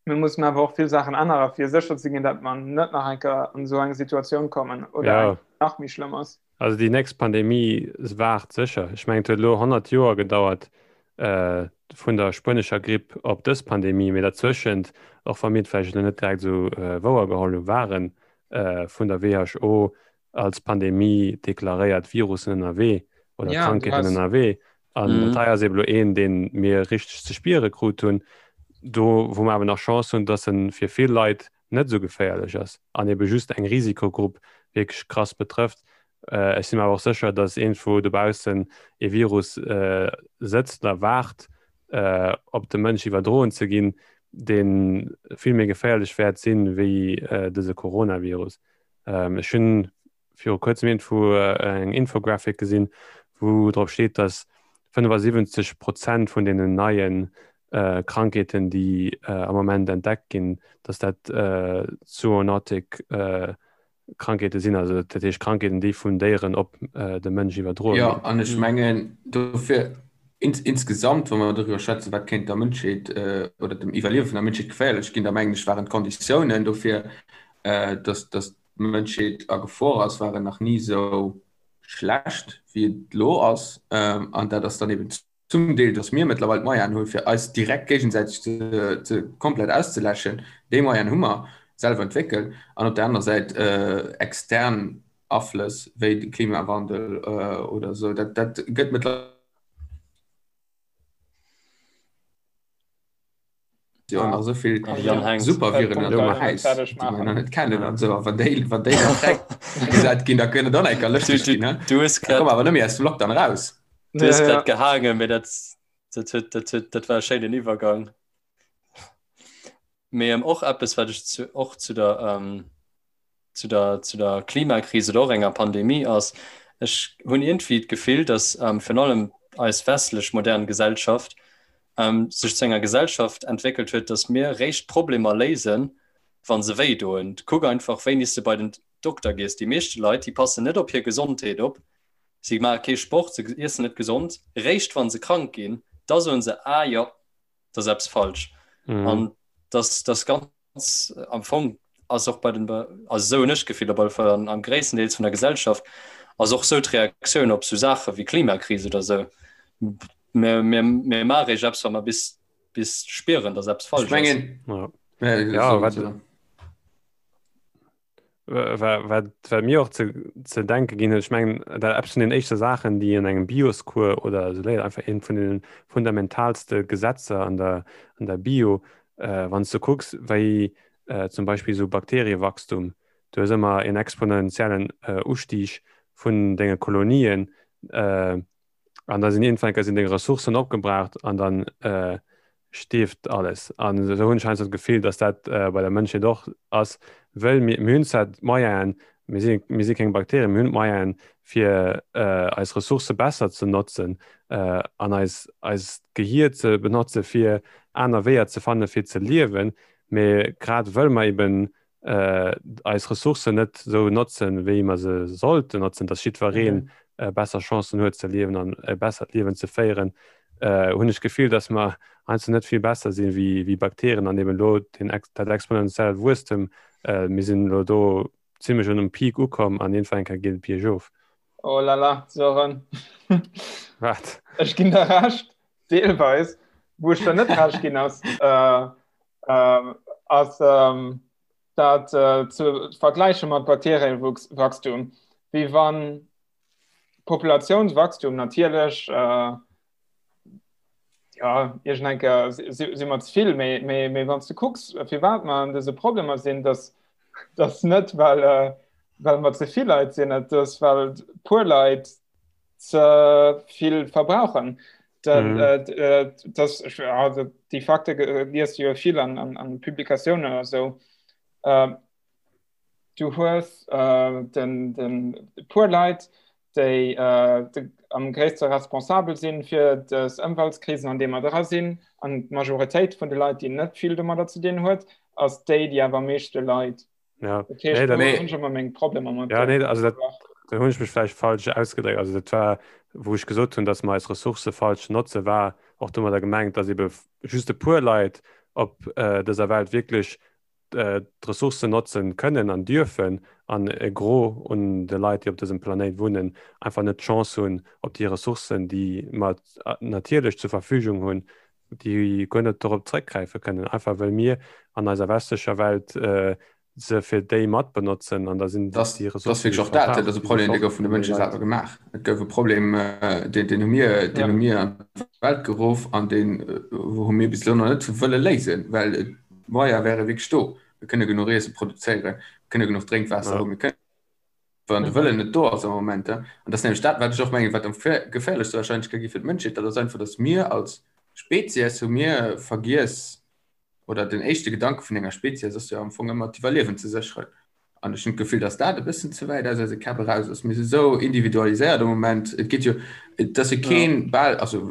Mir mussen awer och vill Saachen ännere fir sécher ze ginn, datt mer net nach eng Kéier an esou eng Situatioun kommen oder
Ja.
eng nach méi schlëmm ass.
Also déi nächst Pandemie waart sécher. Ech mengen et huet elo 100 Joer gedauert äh, vun der spuenescher Gripp op dës Pandemie, mee derzwëschent, och wa mir et vläicht elo net direkt esou äh, wouer geholl hu, waren vun der WHO als Pandemie deklaréiert Virussen ënnerwee oder ja, Krankheeten ënnerwee. An mm. dat hei ass eben lo een, deen mir richteg ze spiere krut hunn, do wou mer awer nach Chance hunn, dass en fir vill Leit net esou geféierlech ass an ebe just eng Risikogrupp wierklech krass betrëfft. Äh, ech sinn mir awer och sécher, dass iergendwou dobaussen e Virus äh, sëtzt a waart, äh, op de Mënsch iwwerdroen ze ginn, dee vill méi geféierlech wäert sinn, wéi äh, dëse Coronavirus. Ähm, ech hunn viru kuerzem iergendwou äh, eng Infographic gesinn, wou drop steet, dass 75 Prozent vun deenen neien äh, Krankheeten, déi äh, am Moment entdeckt ginn, dass dat äh, zoonotic äh, Krankheete sinn, also dat heescht Krankheeten, déi vun Déieren op de Mënsch iwwerdroe
ginn. Jo, an ech mengen dofir insgesamt, wa mer doriwwer schwätzen, wat kéint der Mënschheet oder dem Iwwerliewe vun der Mënschheet geféierlech ginn, da mengen ech waren d'Konditiounen dofir, datt d'Mënschheet a Gefor ass, waren nach ni esou schlecht, wéi et elo ass. An dat ass dann eben Zum Deel, dass mir mëttlerweil d'Moyenen hunn, fir eis direkt géigesäiteg ze komplett auszeläschen. Déi Moyenen hu mer selwer entwéckelt. An op der anerer Säit extern Aflëss wéi de Klimawandel oder esou. Dat, dat gëtt mëttlerweil. Jo nach esou vill Superviren an der Äis, déi mer nach net kennen an esou. A wann déi, wann déi dann fräigesat ginn, da kënnt et och nach eng Kéier lëschteg ginn, ne?
Du hues
Da komme mer awer net méi aus dem Lockdown eraus.
Du hues grad gehaangen, mee dat, dat huet, dat huet, dat war e schéinen Iwwergang. Mee och eppes, wat ech zu, och zu der, zu der, zu der Klimakris oder och enger Pandemie ass, ech hunn iergendwéi d'Gefill, datt virun allem eis westlech modern Gesellschaft sech zu enger Gesellschaft entwéckelt huet, datt mir réischt Problemer léisen, wa se wéi doen. Kuck einfach, wéini s de bei den Dokter gees. Déi meeschte Leit, déi passen net op hir Gesondheet op, si maache kee Sport, se iessen net gesond. Réischt wa se krank ginn, da soen se, Ah jo, et ass eppes falsch. An dass dass ganz am Fong ass och bei den also esou hunn ech d'Gefill op alle Fall an am gréisstendeels vun der Gesellschaft ass och sou d'Reaktioun op sou Saache wéi Klimakris oder sou. Mir, mir, mir maache réischt eppes, wa mer bis, bis spieren, dass eppes
Ech
falsch ass.
mengen,
Ja.
ja,
Ja,
soll,
wat,
soll.
wat, wat, wat mir och ze, ze denke ginn huet, ech mengen, dat eppes vun den éischte Saachen, déi an engem Bioscours oder esou léiert, einfach eent vun den fundamentalste Gesetzer an der, an der Bio, äh, wann s du kucks, wéi äh, zum Beispill esou Bakteriewachstum, du hues ëmmer en exponentiellen äh, Ustieg vun denge Kolonien, äh, an da sinn iergendwann sinn deng Ressourcen opgebraucht an dann äh, stierft alles. An esou hunn ech heiansdo d'Gefill, datt dat äh, bei der Mënschheet och ass, wëll mir, mir hunn zwar d'Moyenen, mir si, mir si keng Bakterien, mir hunn d'Moyenen, fir äh, eis Ressourcë besser ze notzen äh, an eis, eist Gehier ze benotze fir aner Weeër ze fanne fir ze liewen, mee grad wëll mer eben eis Ressourcen net esou notzen, wéi mer se sollten notzen, dass jiddweree besser Chancen huet ze liewen an e bessert Liewen ze féieren, hunn ech d'Gefill, dass mer heiansdo net vill besser sinn wéi Bakterien an eben elo den dat exponentiellt Wuesstem, mir sinn elo do zimlech un um Peak ukomm an iergendwann eng Kéier geet et biergof.
Oh la la, Sören.
Wat?
Ech ginn der Recht, deelweis. Wou ech der net Recht ginn ass, äh, äh, ass ähm, dat äh, ze vergläiche mat Bakterienwachstum. Wéi wann Populationswachstum natierlech äh, ja, iergend eng Kéier si, si mer ze vill, mee, mee, mee wann s du kucks, firwat mer an dëse Problemer sinn, dass dass net well, äh, well mer ze vill Leit sinn, et ass well puer Leit ze vill verbrauchen. Den, mhm. äh, äh, das, also, déi Fakte liest du jo vill an, an, an Publikatiounen oder so. Äh, du hues äh, den, den puer Leit, déi äh, de, am gréisste responsabel sinn fir des Ëmweltkrisen, an deem mer dra sinn, an d'Majoritéit vun de Leit, déi net vill domadder ze dinn huet, ass déi, déi awer am meeschte leit.
Ja.
Dat heescht,
Nee, dat-
do hunn ech ëmmer meng Problemer mat
Ja,
der
nee, also dat,
Saach.
da hunn ech mech vläicht falsch ausgedréckt. Also dat war, wou ech gesot hunn, datt mer eis Ressourcë falsch notze, war och domadder gemengt, datt ebe just e puer Leit op äh, dëser Welt wierklech äh, d'Ressourcen notzen kënnen an dürfen an e Gros un de Leit, déi op dësem Planéit wunnen, einfach net d'Chance hunn, op déi Ressourcen, déi mer natierlech zur Verfügung hunn, déi guer net dorop zréckgräife kënnen, einfach well mir an eiser westlecher Welt äh, se fir déi mat benotzen an da sinn
Das,
déi
das
Ressourcen,
wierklech
déi
och dat, dat
verbraucht,
ass e
déi si
Problem, dee
fort
gouf vun de
vun de
Mënsche
Leit.
selwer gemaach. Et gouf e Problem, äh, deen, deen hu mir, deen
Ja.
hu mir an d'Welt geruff an deen äh, hu mir bis elo nach net wëlle léisen, well et d'Moyer wäre wierklech do. Mir kënne genuch Iesse produzéieren, mir kënne genuch Drénkwaasser
Ja.
hunn, mir kënnen wann de Wëllen net do ass am Moment. An dat ass nämlech dat, wat ech och mengen, wat am geféierlechste wahrscheinlech ka gi fir d'Mënschheet, dat ass einfach, datt mir als Spezies hu mir vergiess, oder den éischte Gedanke vun enger Spezies ass jo am Fong ëmmer d'Iwwerliewen ze sécheren. An ech hunn d'Gefill, datt dat e bëssen ze wäit aus eise Käpp eraus ass. Mir si sou individualiséiert am Moment. Et geet jo, et ass jo keen bal, also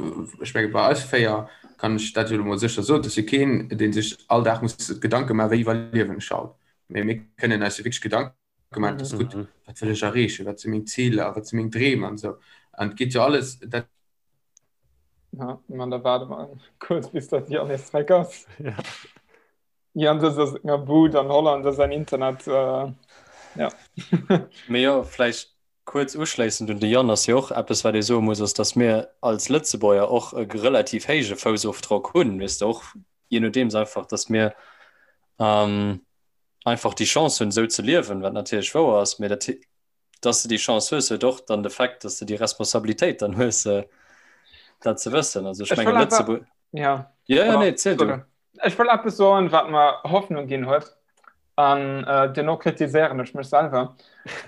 ech menge bei eis 4 kann ech dat jo elo mol sécher soen, et ass jo keen, dee sech all Dag muss Gedanke maachen, wéi iwwerliewen ech haut. Mee mir kënnen eis jo wierklech Gedanke gemeint ass gutt,
Mhm.
wat wëll ech erreechen, wat si meng Ziler, wat si meng Dreem an esou. An et geet jo alles dat.
Ja, man da warte mal kurz bis dat Jan nees zréck ass.
Ja.
Jan sëtzt a senger Bud an Holland a säin Internet äh, ja.
Mee jo, vläicht kuerz uschléissend un de Jan ass jo och eppes, wat ee soe muss, ass, datt mir als Lëtzebuerger och e relativ héije Foussofdrock hunn, weess de, och jee nodeems einfach, datt mir ähm, einfach déi Chance hunn, esou ze liewen, wat natierlech wouer ass, mee dat, dass de déi Chance hues, huet och dann de Fait, dass de déi Responsabilitéit dann hues, dat ze wëssen. Also ech
Ech
menge
wëll awer,
Lëtzebuerg.
ja,
Ja, ja,
pardon,
nee, ziel du.
sorry. Ech wëll eppes soen, wat mer Hoffnung ginn huet, an äh, duerno kritiséieren ech mech selwer.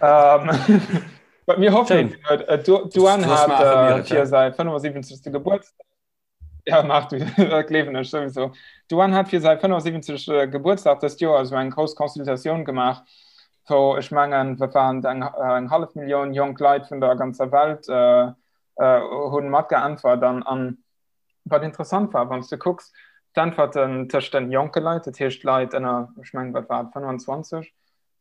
Ähm, wat mir Hoffnung
Schéin.
ginn huet, äh, d'Du- d'Douane
Du hast
hat
mer
äh,
affirmiert,
fir
ja.
säi 75. Gebuertsdag Ja, maach du, dat gleewen ech souwisou. D'Douane hat fir säi 75. Gebuertsdag dëst Joer esou eng grouss Consultatioun gemaach, wou ech mengen, wat waren et, eng, eng hallef Millioun jonk Leit vun der ganzer Welt äh, äh, hunn matgeäntwert. An, an wat interessant war, wann s du kucks, d'Äntwerten tëscht den jonke Leit, dat heescht Leit ënner, ech mengen, wat war et, 25,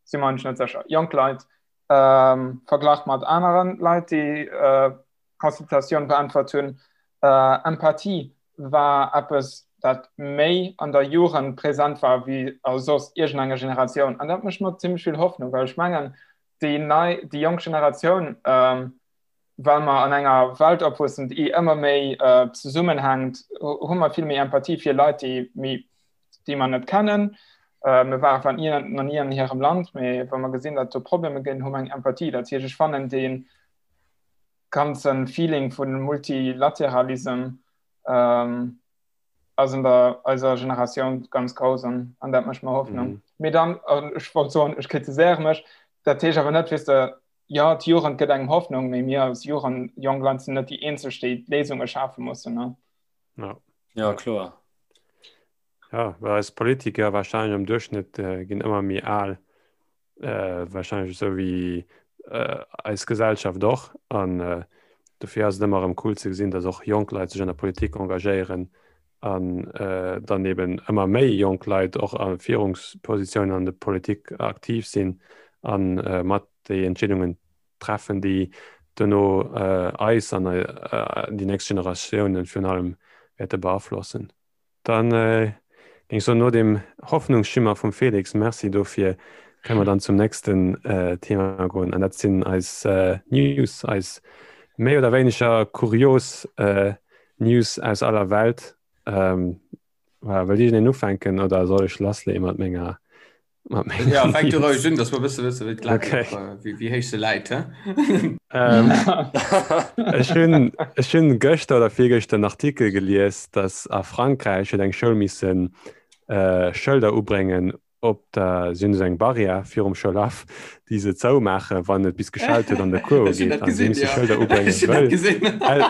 si mer eigentlech net sécher, jonk Leit, ähm, verglach mat aneren Leit, déi äh, Consultatioun beäntwert hunn. Empathie war eppes, dat méi an der Jugend present war wéi a soss iergendenger Generatioun. An dat mécht mer zimmlech vill Hoffnung, well ech mengen, déi nei, déi jonk Generatioun, well mer an enger Welt opwuessen, déi ëmmer méi zesummenhänkt, hu mer vill méi Empathie fir Leit, déi méi, déi mer net kennen. Mir ware zwar nach ni an hirem Land, mee wa mer gesinn, datt do Problemer ginn, hu mer eng Empathie. Dat heescht, ech fannen dee ganzen Feeling vun Multilateralism ähm, ass an der eiser Generatioun ganz grouss an, an dat mécht mer Hoffnung. Mhm. Mee dann an ech wollt soen, ech kritiséiere mech, dat heescht awer net, weess de, ja d'Jugend gëtt engem Hoffnung, mee mir als Jugend, jonk Leit sinn net déi eenzeg, déi d'Léisunge schafe mussen. Ne?
Ja.
Ja, kloer.
Ja, well eis Politiker wahrscheinlech am Duerchschnitt äh, ginn ëmmer méi al. äh, wahrscheinlech esou wéi äh, eis Gesellschaft och an äh, dofir ass et ëmmer erëm cool ze gesinn, dass och jonk Leit sech an der Politik engagéieren an äh, dann eben ëmmer méi jonk Leit och a Führungspositiounen an der Politik aktiv sinn an äh, mat déi Entscheedungen treffen, déi duerno äh, eis an äh, déi nächst Generatiounen virun allem wäerte beaflossen. Dann géing ech soen, no deem Hoffnungsschimmer vum Felix, Merci dofir, kënne mer dann zum nächsten Thema goen an dat sinn eis News, eis méi oder wéineger kurios News aus aller Welt. Voilà, wëllt iergendeen ufänken oder soll ech lassleeë mat menger
Ja, fänk du roueg un, dass mer bësse wësse wéi d'Lag
Okay.
wéi, wéi héich se läit. He?
Ähm, ech hunn ech hunn gëschter oder virgëschter en Artikel gelies, dass a Frankräich huet eng Schoul missen äh, Schëlder ubréngen. Op der, si hunn esou eng Barrière virum Schoulhaff, déi se zoumaachen, wann et bis geschellt huet an de Cours ugeet. An si musse Schëlder ubréngen, well,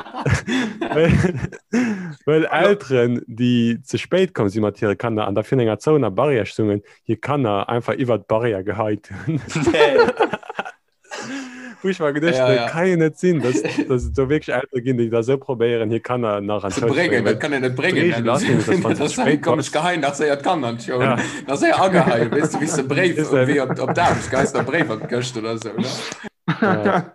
well, well Elteren, déi ze spéit komm si mat hire Kanner an da virun enger zouener Barrière stungen, hir Kanner einfach iwwert d'Barrière geheit hunn. Wou ech mer geduecht
Ja,
hunn,
ja.
dat kann jo net sinn, dass, dass et do wierklech Eltere ginn, déi da sou probéieren, hir Kanner nach an
Ze
d'Schoul ze
bréngen,
bréngen.
dat kann een net bréngen.
D'Reegel ass nämlech, dass wann s
Dat
du ze
ass
spéit
komm, ech
bass,
geheien nach séier d'Kanner an d'Schoul.
ja,
Nach séier ageheien, weess de, wéi s de Bréif
weess de,
wéi op, op d'Aarbecht geheis der Bréif an d'Këscht oder sou, ne?
ja.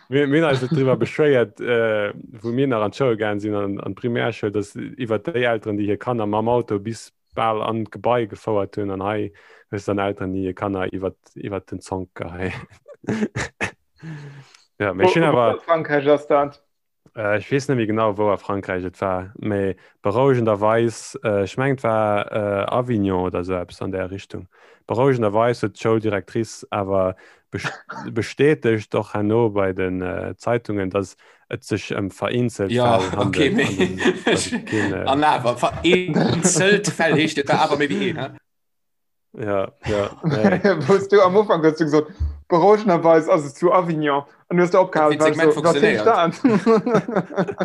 Mir, mir hunn eis et driwwer beschwéiert, äh, wou mir nach an d'Schoul gaangen sinn, an, an d'Primärschoul, dass iwwer déi Elteren, déi hir Kanner mam Auto bis bal an d'Gebai gefouert hunn an hei hues dann Elteren déi hir Kanner iwwer iwwer den Zonk geheien. Ja, mee ech hunn awer
Frankräich ass dat.
Äh, ech weess net méi genau wou a Frankräich et war, mee berouegenderweis, äh, ech mengen et war äh, Avignon oder sou eppes an där Richtung. Berouegenderweis huet d'Schouldirectrice awer bestätegt och herno bei den äh, Zeitungen, dass et sech ëm vereenzelt
Ja,
Fäll
okay,
handelt
mee
an dass et, dass et keen äh,
an awer vereenzelt Fäll heescht et war awer méi wéi een, he?
Ja, ja, nee.
Wous du am Ufank hues du gesot, berouegenderweis ass et zu Avignon an du hues du opgehalen,
Wéi
well
d'Segment
so, wat heescht
funktionéiert.
dat?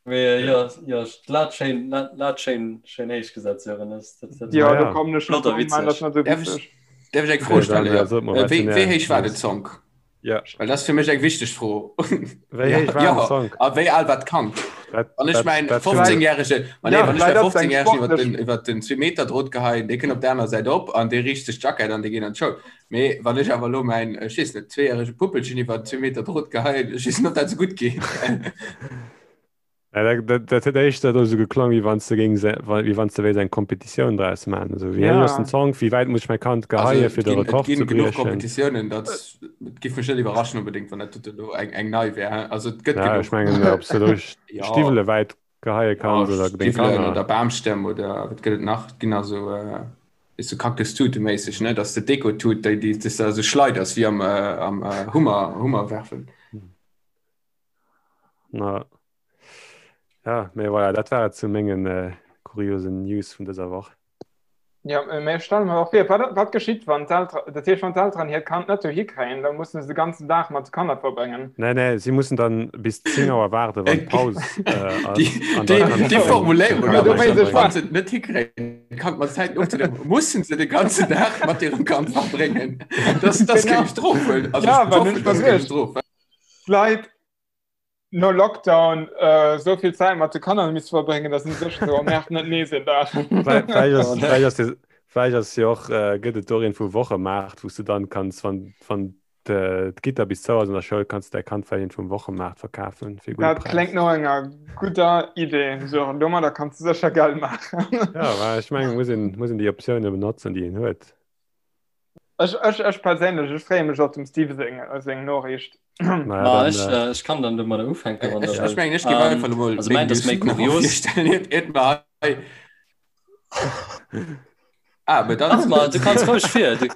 Mee jo, jo, d'Lat schéin, d'Lat schéin, schéin héich gesat, Sören. Dat, dat, dat
Ja,
Ja,
do
ja.
kommen ech
flott
net
a
drun, man, dat
witzeg.
ass net sou
Däerf ech,
witzeg.
däerf ech eng Fro
Okay, dann
stellen?
äh,
Jo.
sot mer,
Äh,
wat
wéi,
sinn
wéi
är
héich war den
News?
Zonk?
Ja.
Well dat ass fir mech eng wichteg Fro.
Wéi
Ja,
héich war den
ja.
Zonk?
A wéi al war d'Kand?
Dat,
Wann ech
dat,
mäin
dat hunn
Vläicht,
15-jährege, ma nee,
ja,
wann ech
vläicht
mäi
ass et eng
15-jähregen iwwer den,
sportlech.
iwwer den 2 Meter Drot geheien, dee kënnt op der aner Säit op an dee riicht sech d'Jackett an dee geet an d'Schoul. Mee wann ech awer elo mäin, ech weess net, zweejärege Puppelchen iwwer 2 Meter Drot geheien, ech weess net, ob dat esou gutt geet.
Ja, dat, dat, dat huet éischter do sou geklong, wéi wann s de géings, wéi wann s de wéilt eng Kompetitioun draus maachen. Also, wéi héich ass den
Ja.
Zonk, wéi wäit muss ech mäi Kand
Also
geheie
et
fir de
ginn, et
Rekord ze
ginn genuch
briechen?
Kompetitiounen, dat et giff mech net iwwerraschen onbedéngt, wann dat elo eng, eng nei wär. Also et gëtt
Ja, ech
genuch.
mengen, ob s de do
Ja,
Stiwwele wäit geheie
ja,
kanns oder deng
Stiwwelen
Kanner.
oder Bamstämm oder wat gëtt et nach? Et ginn also äh, ist so Kaktustute-méisseg, ne? Dass de Deko-Tut, déi, déi s de esou schleiders wéi am, äh, am äh, Hummer, Hummer werfen.
Na. Ja, mee voilà, dat war et zu mengen äh, kuriosen News vun dëser Woch.
Ja, mee ech stelle mer och vir, wat, wat geschitt, wann d'Eltere, dat heescht, wann d'Elteren hiert Kand net dohi kréien, da mussen se de ganzen Dag mat de Kanner verbréngen.
Nee, nee, si mussen dann bis 10 Auer waarden, wann d'Paus äh, ass.
Déi,
An da
déi,
kann
déi
d'Kand
Formuléierung,
d'Kanner
do
mat
wéisst ech
heembréngen.
wann se et net hikréien, d'Kand mat Zäiten ofzehuelen, mussen se de ganzen Dag mat hirem Kand verbréngen. Das, das géing
Genau.
ech drop huelen. Also
Ja,
ech
well hunn
hoffen,
ech mer
das géing ech
geduecht,
drop.
d'Leit no Lockdown äh, sou vill Zäit mat de Kanner misst verbréngen, dass si sech so merkt net nees een Dag.
Vläicht ass, vläicht ass, vläicht ass jo och, äh, gëtt et doreen vu Wochemaart, wou s du dann kanns, wann, wann d'Gitter bis zou ass an der Schoul, kanns du däi Kand vläicht vum Wochemaart verkafen fir e gudde
Dat kléngt
Präis.
no enger gudder Idee, Sören. Domadder kanns du sécher Geld maachen.
Ja, well ech mengen, muss een, muss een déi Optioune benotzen, déi een huet.
Ech, ech, ech perséinlech, ech freeë mech op dem Steve seng, seng Noriicht.
Naja,
Ma
dann,
ech,
äh,
äh, ech kann dann domadder ufänken, wann der
Ech, ech
wëllt.
mengen, ech géif
Ähm,
einfach elo mol
also
meng
mäint ass
News
méi
nach
kurios.
virstellen, iert, iert mer hei. Ah, mä dann.
Ach ma, du kanns roueg vir. Du...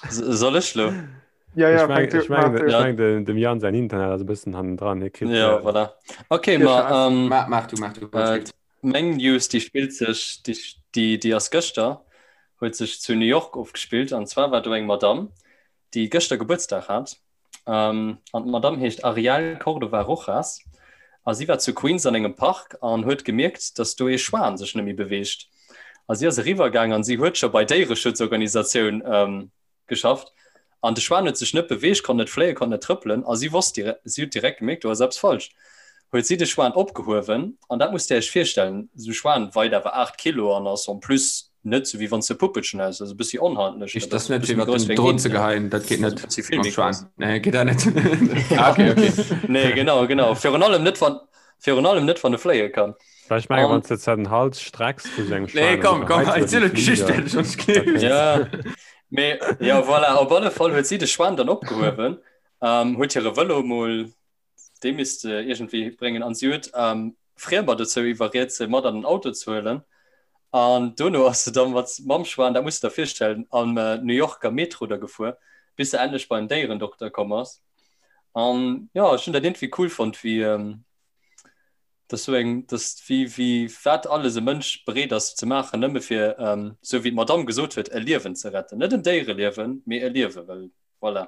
Soll ech lo?
Ja, ja,
Ech meng,
fänk du,
ech meng,
mach du.
ech
Ja.
meng den, dem Jan säin Internet ass e bëssen hannendran. Hie kritt,
Ja,
äh,
voilà. Okay,
Dir
ma
Scheiß.
ähm,
Maach, maach du, maach du.
äh, meng News, déi spillt sech, déi, déi, déi ass gëschter, huet sech zu New York ofgespillt. An zwar war do eng Madame, déi gëschter Gebuertsdag hat. Ähm, an d'Madame heescht Ariel Cordova Rojas. A si war zu Queens an engem Park an huet gemierkt, dass do ee Schwan sech net méi beweegt. A si ass eriwwer gaang an si huet scho bei Déiereschutzorganisatioun ähm, geschafft an de Schwan huet sech net beweegt, konnt net fléien, konnt net trëppelen a si wosst direkt, si huet direkt gemierkt, do ass eppes falsch. Huet si de Schwan opgehuewen an dat musst Dir Iech virstellen, esou e Schwan weit awer 8 Kilo an ass en plus net esou wéi wann s de e Puppelchen häss, also e bëssi onhandlech,
Heescht
dat ass
das net
e bëssi
fir
méi
iwwer
grouss
den
wéi eng
Drot
Int,
ze geheien, dat geet
also
net
e bëssi vill
mam
méi
Schwan.
grouss.
Nee, geet dat net. Ah, okay, okay.
Nee, genau, genau. Virun allem net wann, virun allem net wann e fléie kann.
Well ech mengen,
An
wann s de zwar den Hals strecks vu sou engem
Nee,
Schwan an
komm,
du
komm,
geheits
erziel
iwwer den
d'Geschicht
Fliger,
fäerdeg, sonst
da
gleefs
kéint.
Ja, mee jo, voilà, op alle Fall huet si de Schwan dann opgehuewen, ähm, huet hire Vëlo mol, dee misst se iergendwéi bréngen, an si huet ähm, Friemer dozou iwwerriet, se mat an den Auto ze huelen. An dono ass se dann mat mam Schwan, dat muss de der virstellen, am äh, New Yorker Metro da gefuer, bis se endlech beim Déierendokter komm ass. An jo, ech hunn dat iergendwéi cool fonnt, wéi ähm,. Dat ass sou eng, dat ass wéi, wéi wat alles e Mënsch bereet ass ze maachen, nëmme fir, sou wéi d'Madamm gesot huet, e Liewen ze retten. Net en Déiereliewen, mee e Liewen, well voilà.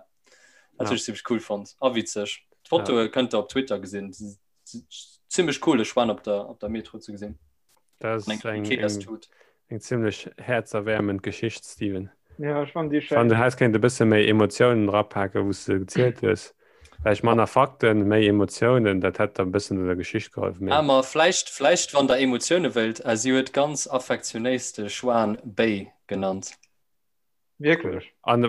Dat hunn ech zimmlech cool fonnt a witzeg. D'Fotoe kënnt der op Twitter gesinn. Zimmlech cool, e Schwan op der, op der Metro ze gesinn.
Dat ass eng, eng, eng zimmlech häerzerwäermend Geschicht, Steven.
Ja, ech fannen déi
schéin. Du häss kéint e bësse méi Emotiounen erapaken, wou s de gezielt hues. Vläicht manner Fakten, méi Emotiounen, dat hätt der e bëssen un der Geschicht geholfen.
Mee. Ah, ma vläicht, vläicht wann der Emotioune wëllt, si huet ganz affektionéis de Schwan Béi genannt.
Wierklech?
An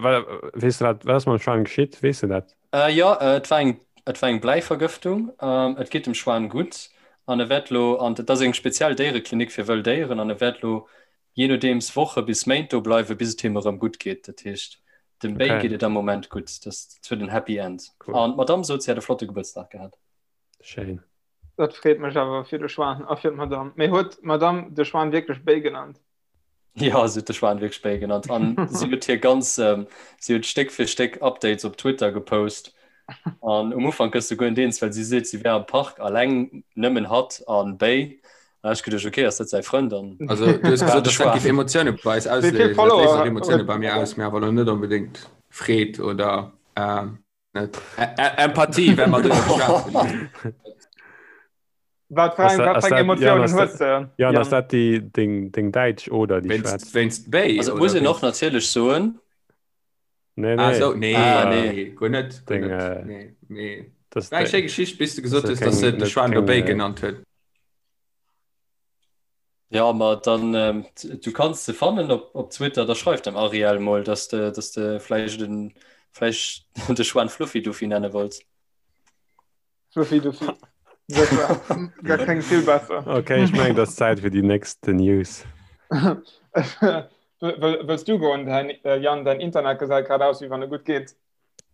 weess de wat, wat ass mam Schwan geschitt? Weess de dat?
Jo, et war eng, et war eng Bläivergëftung. Et geet dem Schwan gutt an e wäert lo an, et ass eng speziell Déiereklinik fir wëll Déieren an e wäert lo jee nodeems Woche bis Méint do bleiwen, bis et him erëm gutt geet. Dat heescht, dem Béi geet et am Moment gutt. Dat huet en Happy End. An d'Madamm sot, si hätt e flotte Gebuertsdag gehat.
Schéin.
Dat freet mech awer fir de Schwan a fir d'Madamm. Mee huet d'Madamm de Schwan wierklech Béi genannt?
Ja, si huet de Schwan wierklech Béi genannt. An si huet hir ganz, si huet Stéck fir Stéck Updates op Twitter gepost. An um Ufank gëss du guer net eens, well si seet, si wär am Park alleng, nëmmen hatt an Béi. An ech geduecht, okay, ass dat säi Frënd? An
Also du hues gesot, dass dat géif Emotioune bei eis ausléisen. Dat léist och Emotioune bei mir aus, mee awer elo net onbedéngt Freed oder net Empathie, well mer driwwer geschwat hunn.
Wat fir eng, wat fir eng Emotiounen hues de?
Jan, ass dat déi deng, deng däitsch oder déi
schwätzt? Wéinst Béi?
Also muss een och natierlech soen.
Nee, nee.
Ah, so, nee,
ah, nee.
Guer net, guer
deng,
net.
Äh,
Nee, mee.
Das
War eng schéi Geschicht, bis du gesot hues, dass se de Schwan do Béi genannt huet.
Ja, ma dann ähm, du kanns se fannen op, op Twitter, da schreif dem Ariel mol, dass de, dass de vläicht den, vläicht de Schwan Fluffy Duffy nenne wollts.
Fluffy Duffy. Dat klingt vill besser.
Okay, ech mengen, et ass Zäit fir déi nächst News.
Wëlls du goen, Jan? Däin Internet gesäit grad aus, wéi wann e gutt geet.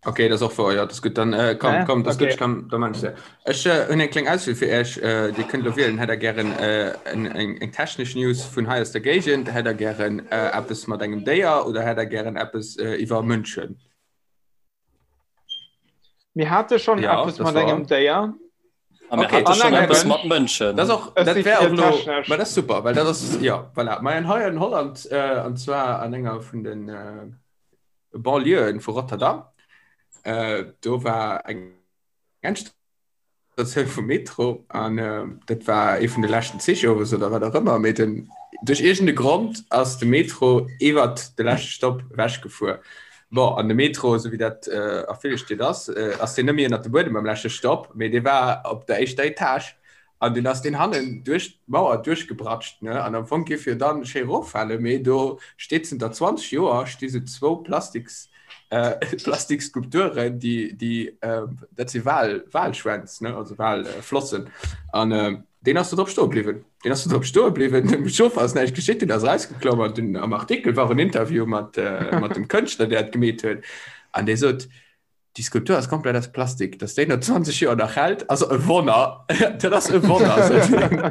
Okay, dat ass och wouer, jo, dat ass gutt. Dann äh, komm,
Ja?
komm, dat ass gutt,
Okay.
ech kann, da man ech se. Ech äh, hunn eng kleng Auswiel fir Iech. Äh, Dir kënnt elo wielen, hätt der gären äh, eng, eng, eng technesch News vun hei aus der Géigend, hätt der gären äh, eppes mat engem Déier oder hätt der gären eppes äh, iwwer Mënschen?
Mir hate schonn
Ja,
eppes
das
mat
war.
engem Déier.
A mir
Okay.
hate
An
schonn
engem
eppes
Mënsch.
mat Mënschen.
Das och,
Ech
dat
si
wär
fir
och lo,
technesch.
ma das super, well dat ass, ja, voilà. Ma an hei an Holland, äh, an zwar an enger vun den äh, Banlieuen vu Rotterdam, äh, do war eng Endstatioun vum Metro an äh, dat war ee vun de leschten Zich owes oder wat och ëmmer, mee den, duerch iergende Grond ass de Metro iwwert de leschte Stopp ewechgefuer. Bon, an de Metro, esou wéi dat a ville Stied ass, ass deen net méi ënnert dem Buedem beim leschte Stopp, mee dee war op der éischter Etage an dunn ass deen hannen duerch d'Mauer duerchgebratscht, ne? An am Fong géif jo dann schéi eroffalen, mee do steet zënter 20 Joer sti sou zwou Plastiks, Plastikskulpturen, déi, déi, dat si Wal, Walschwänz, ne, also Walflossen an Deen ass do drop stoe bliwwen. Deen ass do drop stoe bliwwen. Dem Chauffer ass näischt geschitt, deen ass erausgeklomm an dunn am Artikel war och en Interview mat, äh, mat dem Kënschtler, deen dat gemeet huet. An dee sot, déi Skulptur ass komplett aus Plastik, dass déi no 20 Joer nach hält, ass e Wonner. Dat ass e Wonner, sot hien.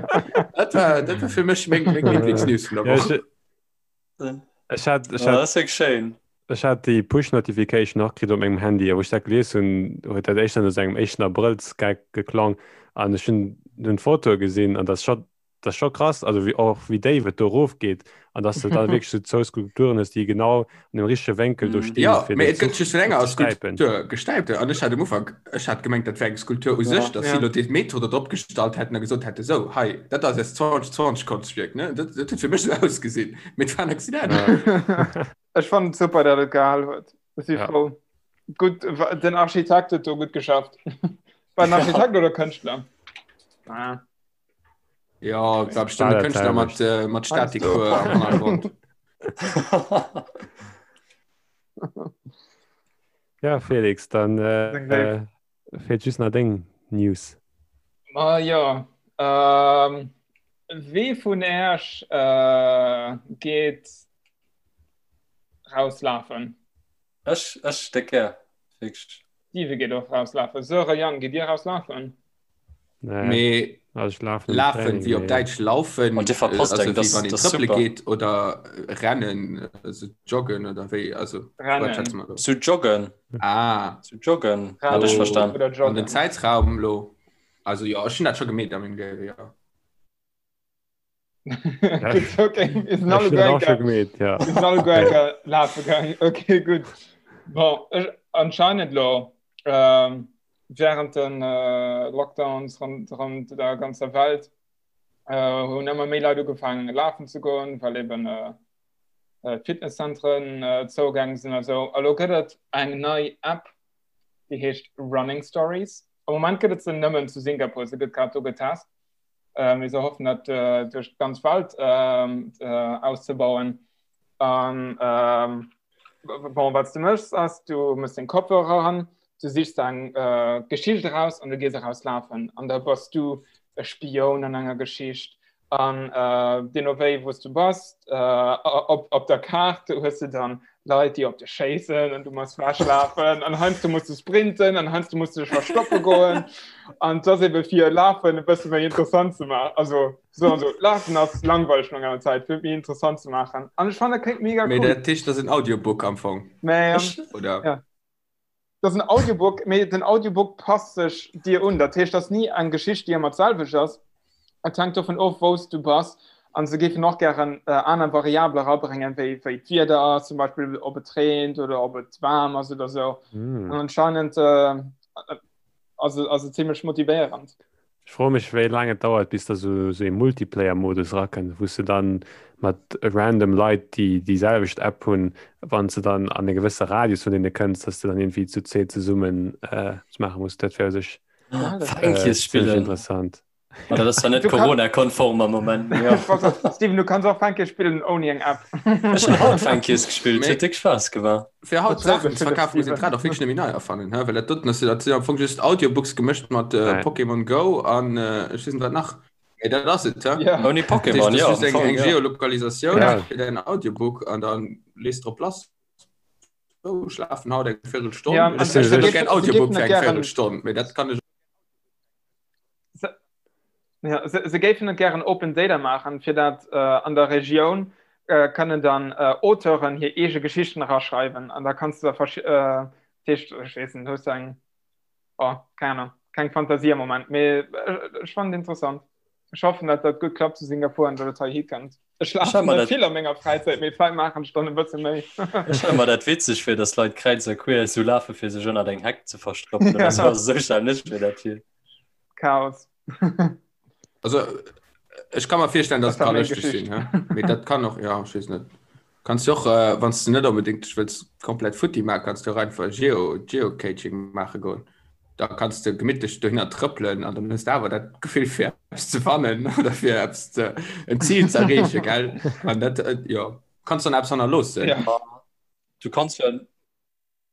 Dat war, dat war fir mech meng, meng Lieblingsnews vun der
Ja,
Woch.
ech, ech hat, ech
Oh,
hat
dat ass wierklech schéin.
Ech hat déi Push-Notification och kritt op mengem Handy, a wou ech dat gelies hunn, huet dat éischter no sou engem éischten Abrëllsgeck geklong an ech hunn dunn d'Fotoe gesinn an dat ass scho, dat ass scho krass, also wéi och wéi déif et do erofgeet an dass de da wierklech sou zwou Skulpturen hues, déi genau an dem richtege Wénkel do
Mhm.
stinn,
Jo,
fir
mee
den
et gëtt
Zuch
just vun enger
ofzestäipen.
Skulptur gestäipt an ech hat um Ufank, ech hat gemengt, dat wär eng Skulptur u
Ja.
sech, dass si
Ja.
elo dee Metro do drop gestallt hätten a gesot hätte, sou, hei, dat ass eist 2020 Konschtwierk, ne? Dat, dat huet fir mech sou ausgesinn, mee et war en Accident.
Ja.
Ech fannen et super, dat et gehal huet. Ech si
Ja.
frou. Gutt, den Architekt huet do gutt geschafft. War en Architekt oder Kënschtler? Ah.
Ja, et war bestimmt e Kënschtler mat, äh, mat Statikhuer am Hannergrond.
Ja, Felix, dann äh, äh, feelt just nach deng News.
Ma ja, ähm, wee vun Äerch äh, geet rauslafen?
Ech, ech déck gär. Wierklech.
Steve geet och rauslafen. Söre, Yann, gitt Dir rauslafen?
Nee,
Mee
also ech lafen am
lafen,
Training,
wéi op
mee
Däitsch laufen,
An dir verpasst
also
eng,
wéi
das,
wann een
das ist
trëppele
super.
geet oder rennen, also joggen oder wéi, also wat
Rennen.
schätze mer do?
Zu joggen,
Ah,
zu joggen, hat ech
Rennen
verstan.
oder
an den
joggen.
Zäitraum lo? Also jo, ech hunn dat scho gemeet a mengem Liewe, jo.
Gutt, okay, mir sinn alle
guer enker, gemeet, ja.
Mir sinn alle guer enker lafe gaangen. Okay, gutt. Bon, ech, anscheinend lo, ähm, während den äh, Lockdowns rondrëm der ganzer Welt, äh, hunn ëmmer méi Leit ugefaangen lafen ze goen, well eben äh, äh, d'Fitnesszentren äh, zougaange sinn a sou. A lo gëtt et eng nei App, déi heescht Running Stories. Am Moment gëtt et se nëmmen zu Singapur, se gëtt grad do getest. Äh, mir se hoffen dat äh, duerch d'ganz Welt äh, äh, auszebauen. An ähm, bon, wat du mëchs ass, du mëss den Kopfhörer an, du sichs eng äh, Geschicht eraus an du gees eraus lafen. An da bass du e Spioun an enger Geschicht. An äh, deemno wéi wou s du bass, äh, op, op der Kaart hues du dann Leit, déi op dech schéissen an du muss wechlafen an heiansdo muss du sprinten an heiansdo muss du dech verstoppe goen. An dat ass ebe fir Lafen e bësse méi interessant ze maachen. Also so an so Lafen ass langweileg no enger Zäit, fir et méi interessant ze maachen. An ech fannen dat kléngt mega
Mee
cool.
dat heescht, dat ass en Audiobook am Fong,
Mä
oder?
ja. Dat ass en Audiobook, mee den Audiobook passt sech dir un. Dat heescht, dat ass ni eng Geschicht, déi ëmmer d'selwecht ass. Et hänkt dovun of, wou s du bass. An se géifen och gären aner Variabele erabréngen, wéi wéi d'Wieder ass, zum Beispill ob et reent oder ob et waarm ass oder sou. An anscheinend ass et ass et zimmlech motivéierend.
Ech froe mech wéi laang et dauert bis da sou ee Multiplayer-Modus erakënnt, wou s de dann mat random Leit déi déi selwecht App hunn, wann s de dann an e gewësse Radius vun deene kënns, dass de dann iergendwéi zu zweet zesummen eppes maache muss. Dat wär u sech zimmlech interessant.
Ma dat ass zwar net Corona-konform am Moment, mee
jo. Steven, du kanns och Fänkies spillen ouni eng App.
Ech hunn haut Fänkies gespillt, huet déck Spaass gemaach.
Fir haut Saachen ze verkafen, muss een d'Rad och wierklech net méi nei erfannen, he? Well dat doten ass jo, dat sinn am Fong just Audiobooks gemëscht mat Pokémon Go an ech weess net wat nach. Mee dat ass et, he?
Ouni Pokémon,
jo, am Fong, jo. Eng Geolokalisatioun fir däin Audiobook an da lees drop lass. Sou, ech lafen haut eng Véirelstonn. Ech hätt och gär en Audiobook fir eng Véirelstonn, mee dat kann ech.
Ja, se, se géifen et gären Open Data maachen, fir dat äh, an der Regioun äh, kënnen dann äh, Auteuren hir eege Geschichten eraschreiwen. An da kanns du da verschi äh, dat heescht, ech weess net, hues du eng, oh, keng Ahnung, keng Fantasie am Moment, mee ech, ech fannen et interessant. Ech hoffen, dat dat gutt klappt zu Singapur an dat et heihi kënnt. Ech lafen net
dat...
vill a menger Fräizäit, mee vläit maachen ech dann e bësse méi.
Ech stelle mer dat witzeg fir, dass Leit kräiz a queer esou lafe fir sech ënnert eng Heck ze verstoppen oder sou. Also esou stellen ech mir dat vir.
Chaos.
Also ech kann mer virstellen, dass
Dat
et
war
kann
meng
lëschteg
Geschicht.
sinn, hä? Mee dat kann och, ja, ech weess net. Kanns du och, äh, wann s du net onbedéngt dech wëlls komplett futti maachen, kanns du och einfach Geo, Geocaching maache goen. Da kanns du gemittlech dohinner trëppelen an dann hues du awer dat Gefill fir eppes ze fannen oder fir eppes ze, en Zil ze erreechen, gell? An dat, äh, jo, kanns dann eppes hannerloossen.
Ja.
Du kanns jo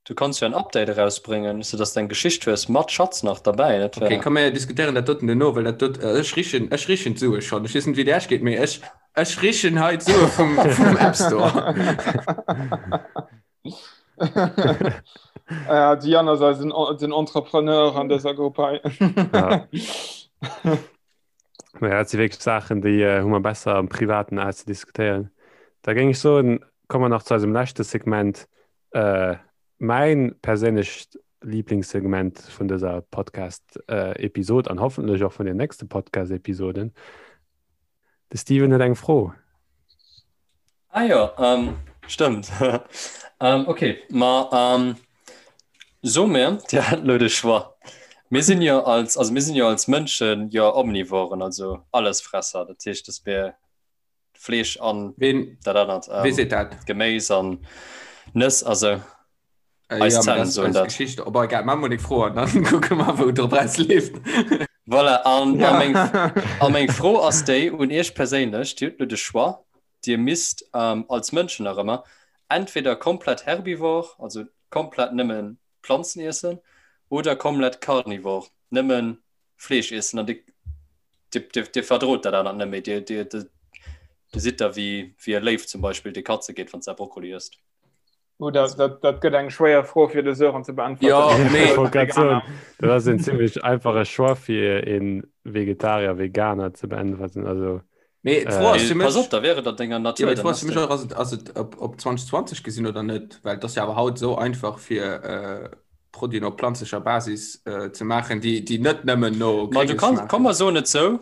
Du kanns jo en Update erausbréngen, sou dass de eng Geschicht hues mat Schatz nach derbäi. Dat
Okay,
wär.
komm mir diskutéieren dat doten duerno, well dat dot, ech richen, ech richen d'Sue schonn. Ech weess net wéi et Iech geet, mee ech, ech richen hei d'Sue vum, vum App Store.
Ja, de Yann ass eisen, den Entrepreneur an dëser Grupp hei.
Ja. Naja, dat si wierklech Saachen, déi hu mer besser am Privaten auszediskutéieren. Da géing ech soen, komme mer nach zu eisem leschte Segment, Mäin perséinlecht Liblingssegment vun dëser Podcast-Episod an hoffentlech och vun den nächste Podcast-Episoden. De Steven huet eng Fro.
Ah jo, stëmmt. Ok, ma so mir, Dir hat elo de Choix. Mir sinn jo als, also mir sinn jo als Mënschen jo Omnivoren, also Allesfresser. Dat heescht, dass mir Fleesch an
Ween,
dat anert
wee
ähm,
seet dat?
Geméis an Nëss also
Äh,
eis
ja, mee
Zänn
dat ass
soen
eis
dat.
Geschicht. Op egal, maache mer deng Fro an dann kucke mer, wou et drop rausleeft.
Voilà, an, a
Ja.
meng, a meng Fro ass déi un Iech perséinlech, Dir hutt elo de Choix, Dir misst ähm, als Mënschen nach ëmmer entweder komplett herbivore, also komplett nëmme Planzen iessen, oder komplett carnivore, nëmme Fleesch iessen an Dir, Dir, Dir, Dir verdrot dat anert net méi. Dir, Dir, Dir, Dir sidd da wéi, wéi e Léiw zum Beispill, dee Katze geet, wann s de Brokkoli ësst.
Oh, dat, dat, dat gëtt eng schwéier Fro fir de Sören ze beäntwerten.
Ja, mee.
Ech wollt grad soen, dat ass en zimmlech einfache Choix fir e Vegetarier, Veganer ze beäntwerten. Also,
Mee d'Fro ass
Mee
fir
pass
mech,
op, da wär et an denger
jo,
Natur,
mee d'Fro
dann
ass
ass
fir mech
de.
och, ass et, ass et op, op 2020 gesinn oder net? Well et ass jo awer haut esou einfach fir. Produiten op planzlecher Basis äh, ze maachen, déi, déi net nëmmen no
Ma du kanns, komm mer soen et sou,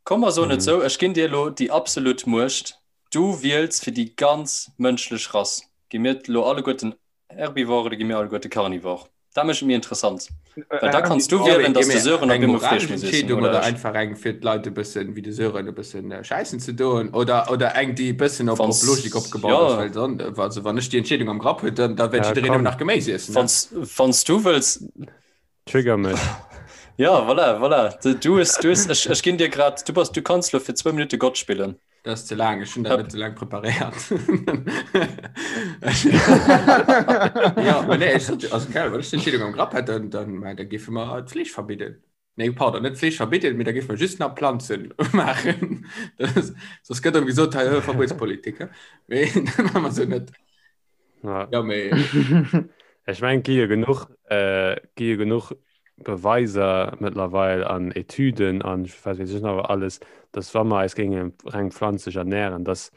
komm mer soen et sou, ech ginn dir elo déi absolut Muecht, du wiels fir déi ganz mënschlech Rass. Gi mir elo alleguerten Herbivore oder gi mir alleguerte Carnivore? Dat mécht et méi interessant, well da kanns du wielen, datt de Sören op
Eng
eemol Fleesch
moralesch
muss iessen
Entscheedung
oder
oder
ech.
einfach eng fir d'Leit e bëssen, wéi de Sören, e bëssen schäissen ze doen oder, oder eng, déi e bëssen op, op
Wanns,
Logik opgebaut ass,
ja,
well dann, also wann ech déi Entscheedung am Grapp hunn, dann, da wäert
Ja,
jiddereen nëmmen
komm.
nach Geméis iessen, ne?
wanns, wanns du wëlls,
Trigger mech.
Ja, voilà, voilà. Du, du hues, du hues, ech, ech ginn dir grad, du bass, du kanns lo fir zwou Minutte Gott spillen.
Dat ass ze laang, ech hunn dat
Hëpp.
net ze laang preparéiert. Ja, mä nee, ech sot, also keine Ahnung, wann ech d'Entscheedung am Grapp hätt, dann, dann, mä da géife mer d'Fleesch verbidden. Nee, pardon, net d'Fleesch verbidden, mee da géife mer just nach Planzen maachen. Dat ass, soss gëtt erëm gesot, hei, Verbuetspolitik, he? Mee dat maache mer sou net.
Ja.
Ja, mee.
Ech mengen, et gi jo genuch, äh, gi jo genuch Beweiser mëttlerweil an Etüden an wat weess ech nach alles, dass wa mer eis géinge reng pflanzlech ernähren, dass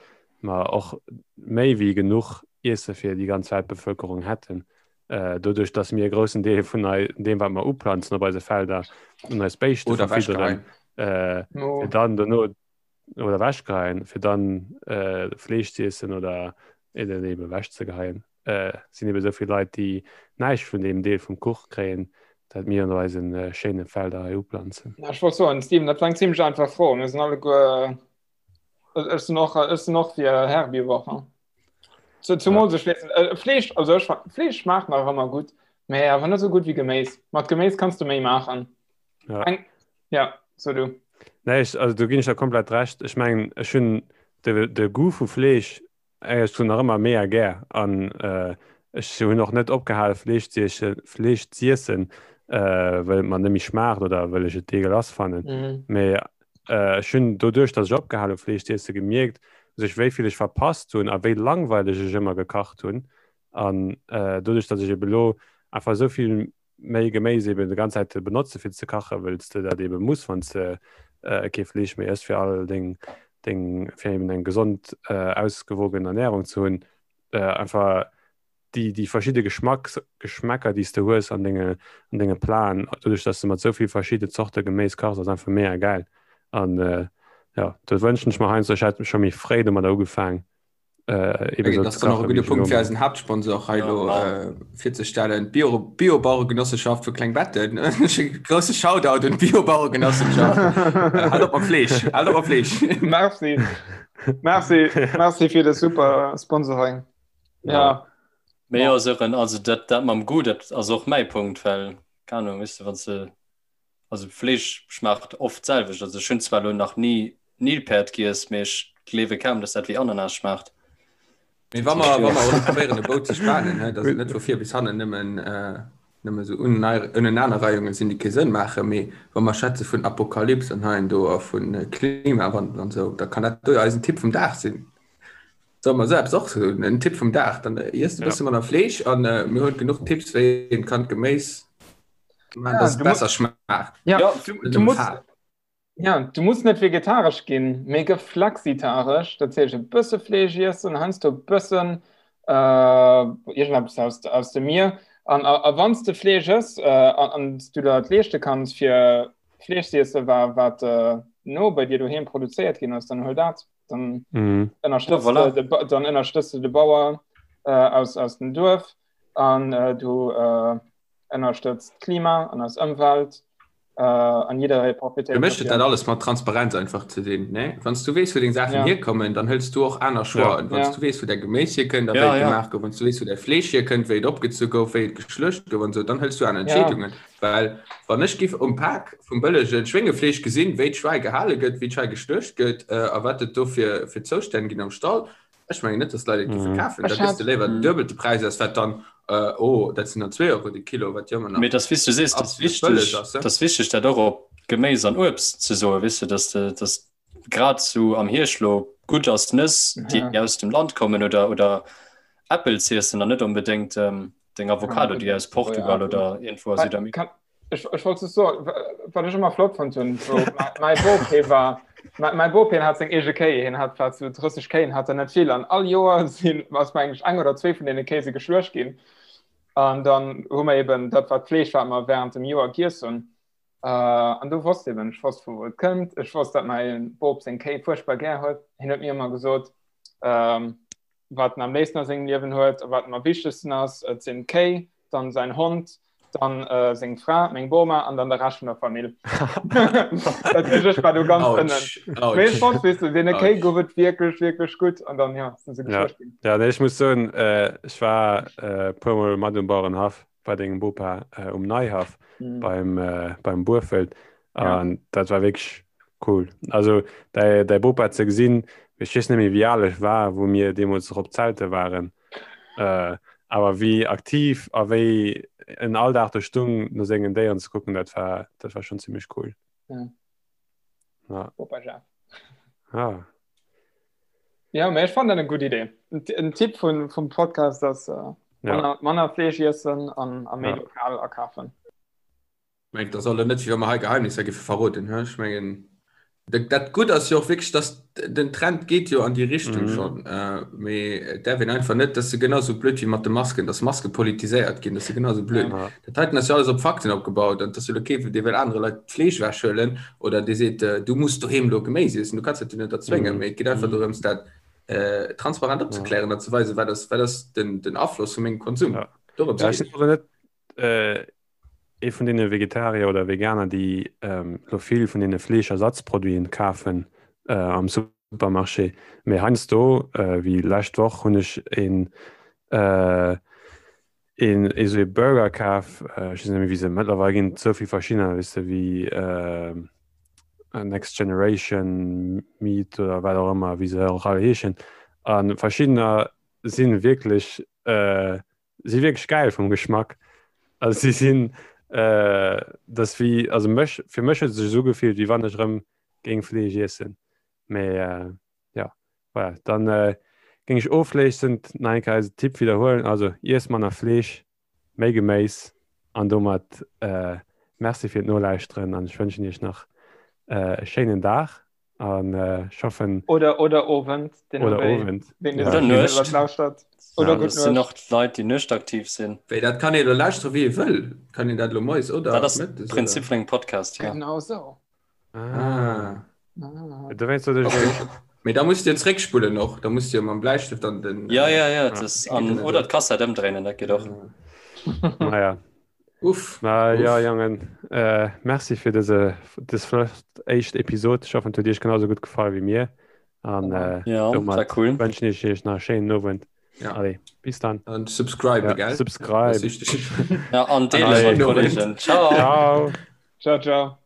mer och méi wéi genuch Iesse fir déi ganz Weltbevölkerung hätten. Äh, doduerch, dass mir e groussen Deel vun ei, deem, wat mer uplanzen op eise Felder, un eis Béischte
Oder
verfidderen,
wechgeheien.
äh, fir dann dono oder wechgeheien, fir dann äh, Fleesch ze iessen oder eben eben wechzegeheien. Äh, sinn eben esou vill Leit, déi näischt vun deem Deel vum Kuch kréien, dat mir an eisen äh, schéine Felder hei uplanzen.
Ja, ech wollt soen, Steven, dat war eng zimmlech einfach Fro. Mir sinn alleguer, ech sinn och, ech sinn och fir Herbivore. Zu, zumal ja. sech äh, Fleesch, also ech, Fleesch schmaacht nach ëmmer gutt, mee awer net sou gutt wéi Geméis. Mat Geméis kanns du méi maachen.
Ja.
Eng, ja, so du.
Nee, ech, also do ginn ech der komplett recht. Ech mengen, ech hunn de, de Goût vu Fleesch ech hunn nach ëmmer mega gär an äh, ech hunn och net opgehale Fleesch ze iessen, Fleesch z'iessen, äh, well et mer net méi schmaacht oder well ech et deegelass fannen.
Mhm.
Mee äh, ech hunn doduerch, datt ech opgehal hu Fleesch z'iessen, gemierkt, sech wéi vill ech verpasst hunn a wéi langweileg ech ëmmer gekacht hunn. An äh, doduerch, datt ech ebe lo einfach esou vill méi Geméis eben de ganz Zäit benotze fir ze kachen, wëll s de dat eben muss, wann s de äh, kee Fleesch méi ëss, fir all deng, deng, fir eben eng gesond, äh, ausgewogen Ernährung ze hunn, äh, einfach déi, déi verschidde Geschmacks, Geschmäcker, déi s de hues an denge, an denge Platen, doduerch, dass de mat esou vill verschidde Zorte Geméis kachs, ass einfach mega gäil. An äh, ja, do wënschen ech mer heiansdo, ech hätt scho méi fréi domadder ugefaang,
äh, eben so das noch gute Punkt fir eisen Hauptsponsor hei lo, ja. äh, virzestellen Bio Biobauergenossenschaft vu Klengbetten grosse Shoutout un Biobauergenossenschaft äh, halt op Fleesch halt op Fleesch
Merci Merci Merci fir de super Sponsoring ja,
ja. Mee ja, Sören, also dat, dat mam Goût, dat ass och mäi Punkt, well, keine Ahnung, weißt du, wann se Also Fleesch schmaacht oft d'selwecht. Also ech hunn zwar elo nach ni Nilpäerd giess, mee ech gleewe kaum, dass dat wéi Ananas schmaacht.
Mee wa mer, wa mer och probéieren e Bou ze spanen, hä, dass et net vu vir bis hannen nëmmen, nëmme sou Unenanerreihunge sinn, déi kee Sënn maachen, mee wa mer schwätze vun Apokalyps an hei an do a vu Klimawandel an esou, da kann dat do jo eisen Tipp vum Dag sinn. Solle mer esou eppes och soen, en Tipp vum Dag, dann iess e bësse manner Fleesch an mir hunn genuch Tipps, wéi een kann d'Geméis
Ja,
dass et
du musst,
besser schmaacht.
ja,
Ja,
du,
Net
du
nëmme
musst,
Faarf.
ja, du musst net vegetaresch ginn, mee gëff flexitaresch. Dat heescht e bësse Fleesch iessen, heiansdo e bëssen äh, iergendeppes aus, aus dem Mier. An, a, a wann s de Fleesch ëss äh, an, an s du der et leeschte kanns, fir Fleesch ze iessen, wa, wat äh, no bei dir doheem produzéiert ginn ass, dann huel dat. Dann
Mhm.
ja,
ënnerstëtz
voilà.
de, de, Ba- dann ënnerstëtz de de Bauer äh, aus, aus dem Duerf an äh, du äh, ënnerstëtzt d'Klima an eis Ëmwelt an jidderee
Fir
profitéiert
mech huet dat
dofir.
alles mat Transparenz einfach ze dinn, ne? Wann s du weess, wou deng Saachen
Ja.
hierkommen, dann hëls du och aner
Ja.
Choixen. Wann s
Ja.
du weess, wou däi Geméis hierkënnt a wéi
Ja,
et
ja.
gemaach gouf, wann s du weess, wou däi Fleesch hierkënnt, wéi et opgezu gouf, wéi et geschluecht gouf an esou, dann hëls du aner
Ja.
Entscheedungen. Well wann ech giff um Pak vum bëllege Schwéngefleesch gesinn, wéi d'Schwäi gehale gëtt, wéi d'Schwäi geschluecht gëtt a wat et do fir fir Zoustänn ginn am Stall, Ech mengen net, dass d'Leit et géife kafen. Da
Ech
gëss de
hat.
léiwer den duebelte Präis aus, wat dann, oh, dat sinn dann zwee Euro de Kilo, wat jo ëmmer nach
Mee dass, wéi s du sees, dass
absolut bëlleg
wichteg,
ass.
dass wichteg dat och op Geméis an Uebst ze soen, weess de, dass de, dass grad sou am Hierscht lo gutt ass Nëss, déi
Ja.
aus dem Land kommen oder, oder Äppel z'iessen an net onbedéngt deng
Ja,
Avocado, déi aus Portugal oder iergendwou a Südamerika.
Kann, Ech, ech wollt just soen, wat ech ëmmer flott fonnt hunn, wou mäi Bop hie war, mäi Bop hien hat seng eege Kéi, hien hat wat sou 30 Kéi, hat der net vill an all Joer sinn, ass mengen ech eng oder zwee vun deene Kéi si geschluecht ginn. An dann hu mer eben dat wat Fleesch wat mer während dem Joer giess hunn. Äh, an du wosst eben, ech wosst vu wou et kënnt. Ech wosst, dat mäi Bop seng Kéi fuerchtbar gär huet. Hien huet mir ëmmer gesot, ähm, wat en am léifsten a sengem Liewen huet a wat em am wichtegsten ass, et sinn d'Kéi, dann säin Hond, dann äh, seng Fra, meng Boma an dann de Rescht vun der Famill. Dat heescht, ech war do ganz ënnen. Mee ech wosst, weess du, deene Kéi gouf et wierklech, wierklech gutt an dann, ja, sinn se
Ja.
geschluecht ginn.
Ja, nee, ech muss soen, äh, ech war äh, puermol mat um Bauerenhaff bei dengem Bopa äh, um Neihaff
Mhm.
beim, äh, beim Buerfelt
Ja.
an dat war wierklech cool. Also däi, däi Bopa ze gesinn, ech weess net méi wéi al ech war, wou mir deemools erop zelte waren, äh, awer wéi aktiv a wéi en all Dag do stung no sengen Déieren ze kucken, dat war, dat war schon zimmlech cool.
Ja.
Ja.
Bopa Jeff.
Ah.
Ja, mä ech fannen dat eng gutt Idee. En Tipp vun, vum Podcast ass äh,
Ja.
manner, manner Fleesch iessen an, a méi
Ja.
lokal akafen.
Mengt dat ass elo net wéi wa mer hei Geheimnisser giffe verroden, he? Ech mengen dat dat Gutt ass jo och wierklech, datt den Trend geet jo an déi Richtung
Mhm.
schonn, mee et däerf een einfach net, dat ass jo genau esou blöd wéi mat de Masken, datt Maske politiséiert ginn, dat ass jo genau esou blöd.
Ja.
Dat heiten ass jo alles op Fakten opgebaut an et ass jo elo kee dee wëll anere Leit d'Fleesch ewechhuelen oder dee seet, du muss doheem elo Geméis iessen, du kanns dat jo net erzwéngen,
Mhm.
mee et geet einfach
Mhm.
dorëms dat transparent
Ja.
opzeklären an ze weisen, wat ass wat ass den den Afloss vu mengem Konsum.
Ja.
Dorëms
Ja, ech
geet
sinn awer net ee vun deene Vegetarier oder Veganer, déi elo vill vun deene Fleeschersatzproduiten kafen am Supermarché. Mee heiansdo, wéi lescht Woch, hunn ech een een esou ee Burger kaf, ech weess net méi wéi se, mëttlerweil ginn et esou vill verschiddener, weess de, wéi Next Generation Meat oder wat och ëmmer, wéi se och all heeschen. A verschiddener si wierklech si wierklech geil vum Geschmack. Also si sinn äh, das wie also mech fir mech huet sech esou gefillt, wéi wann ech rëm géing Fleesch iessen. Mee äh, ja voilà. Dann äh, géing ech ofléissend nach eng Kéier eise Tipp widderhuelen, also iess manner Fleesch, méi Geméis an domat äh, Merci fir d'Nolauschteren an ech wënschen iech nach äh, e schéinen Dag. An ech hoffen.
Oder, oder Owend,
den oder Owend.
Den
ja. Oder Nuecht.
Lauschtert.
Oder ja, das sind noch Leit, déi nuechtaktiv sinn.
Wéi, dat kann ee lo lauschtere wéi ee wëll. Kann een dat lo moies oder
Dat ass mëttes, Prinzip vun engem Podcast,
ja. Genau sou.
Ah. Ah.
Dowéinst sot ech
okay. Mee da musst Dir zréckspullen och. Da musst Dir mam Bläistëft an den.
Ja, ja, ja. Das, an, oder d'Kassett ëmdréinen, dat geet och.
Naja.
Uff.
Na ja, Jongen, äh, merci fir dëse dës flott éischt Episod. Ech hoffen, et huet Iech genau sou gutt gefall wéi mir. An äh,
Ja, war
domat
cool.
wënschen ech Iech nach e schéinen Owend.
Ja.
Allez, bis dann.
An subscribe,
Ja,
gell?
subscribe.
Das ist wichtig.
Ja, an deele
Allez.
mat Kollegen. Ciao.
Ciao.
Ciao, ciao.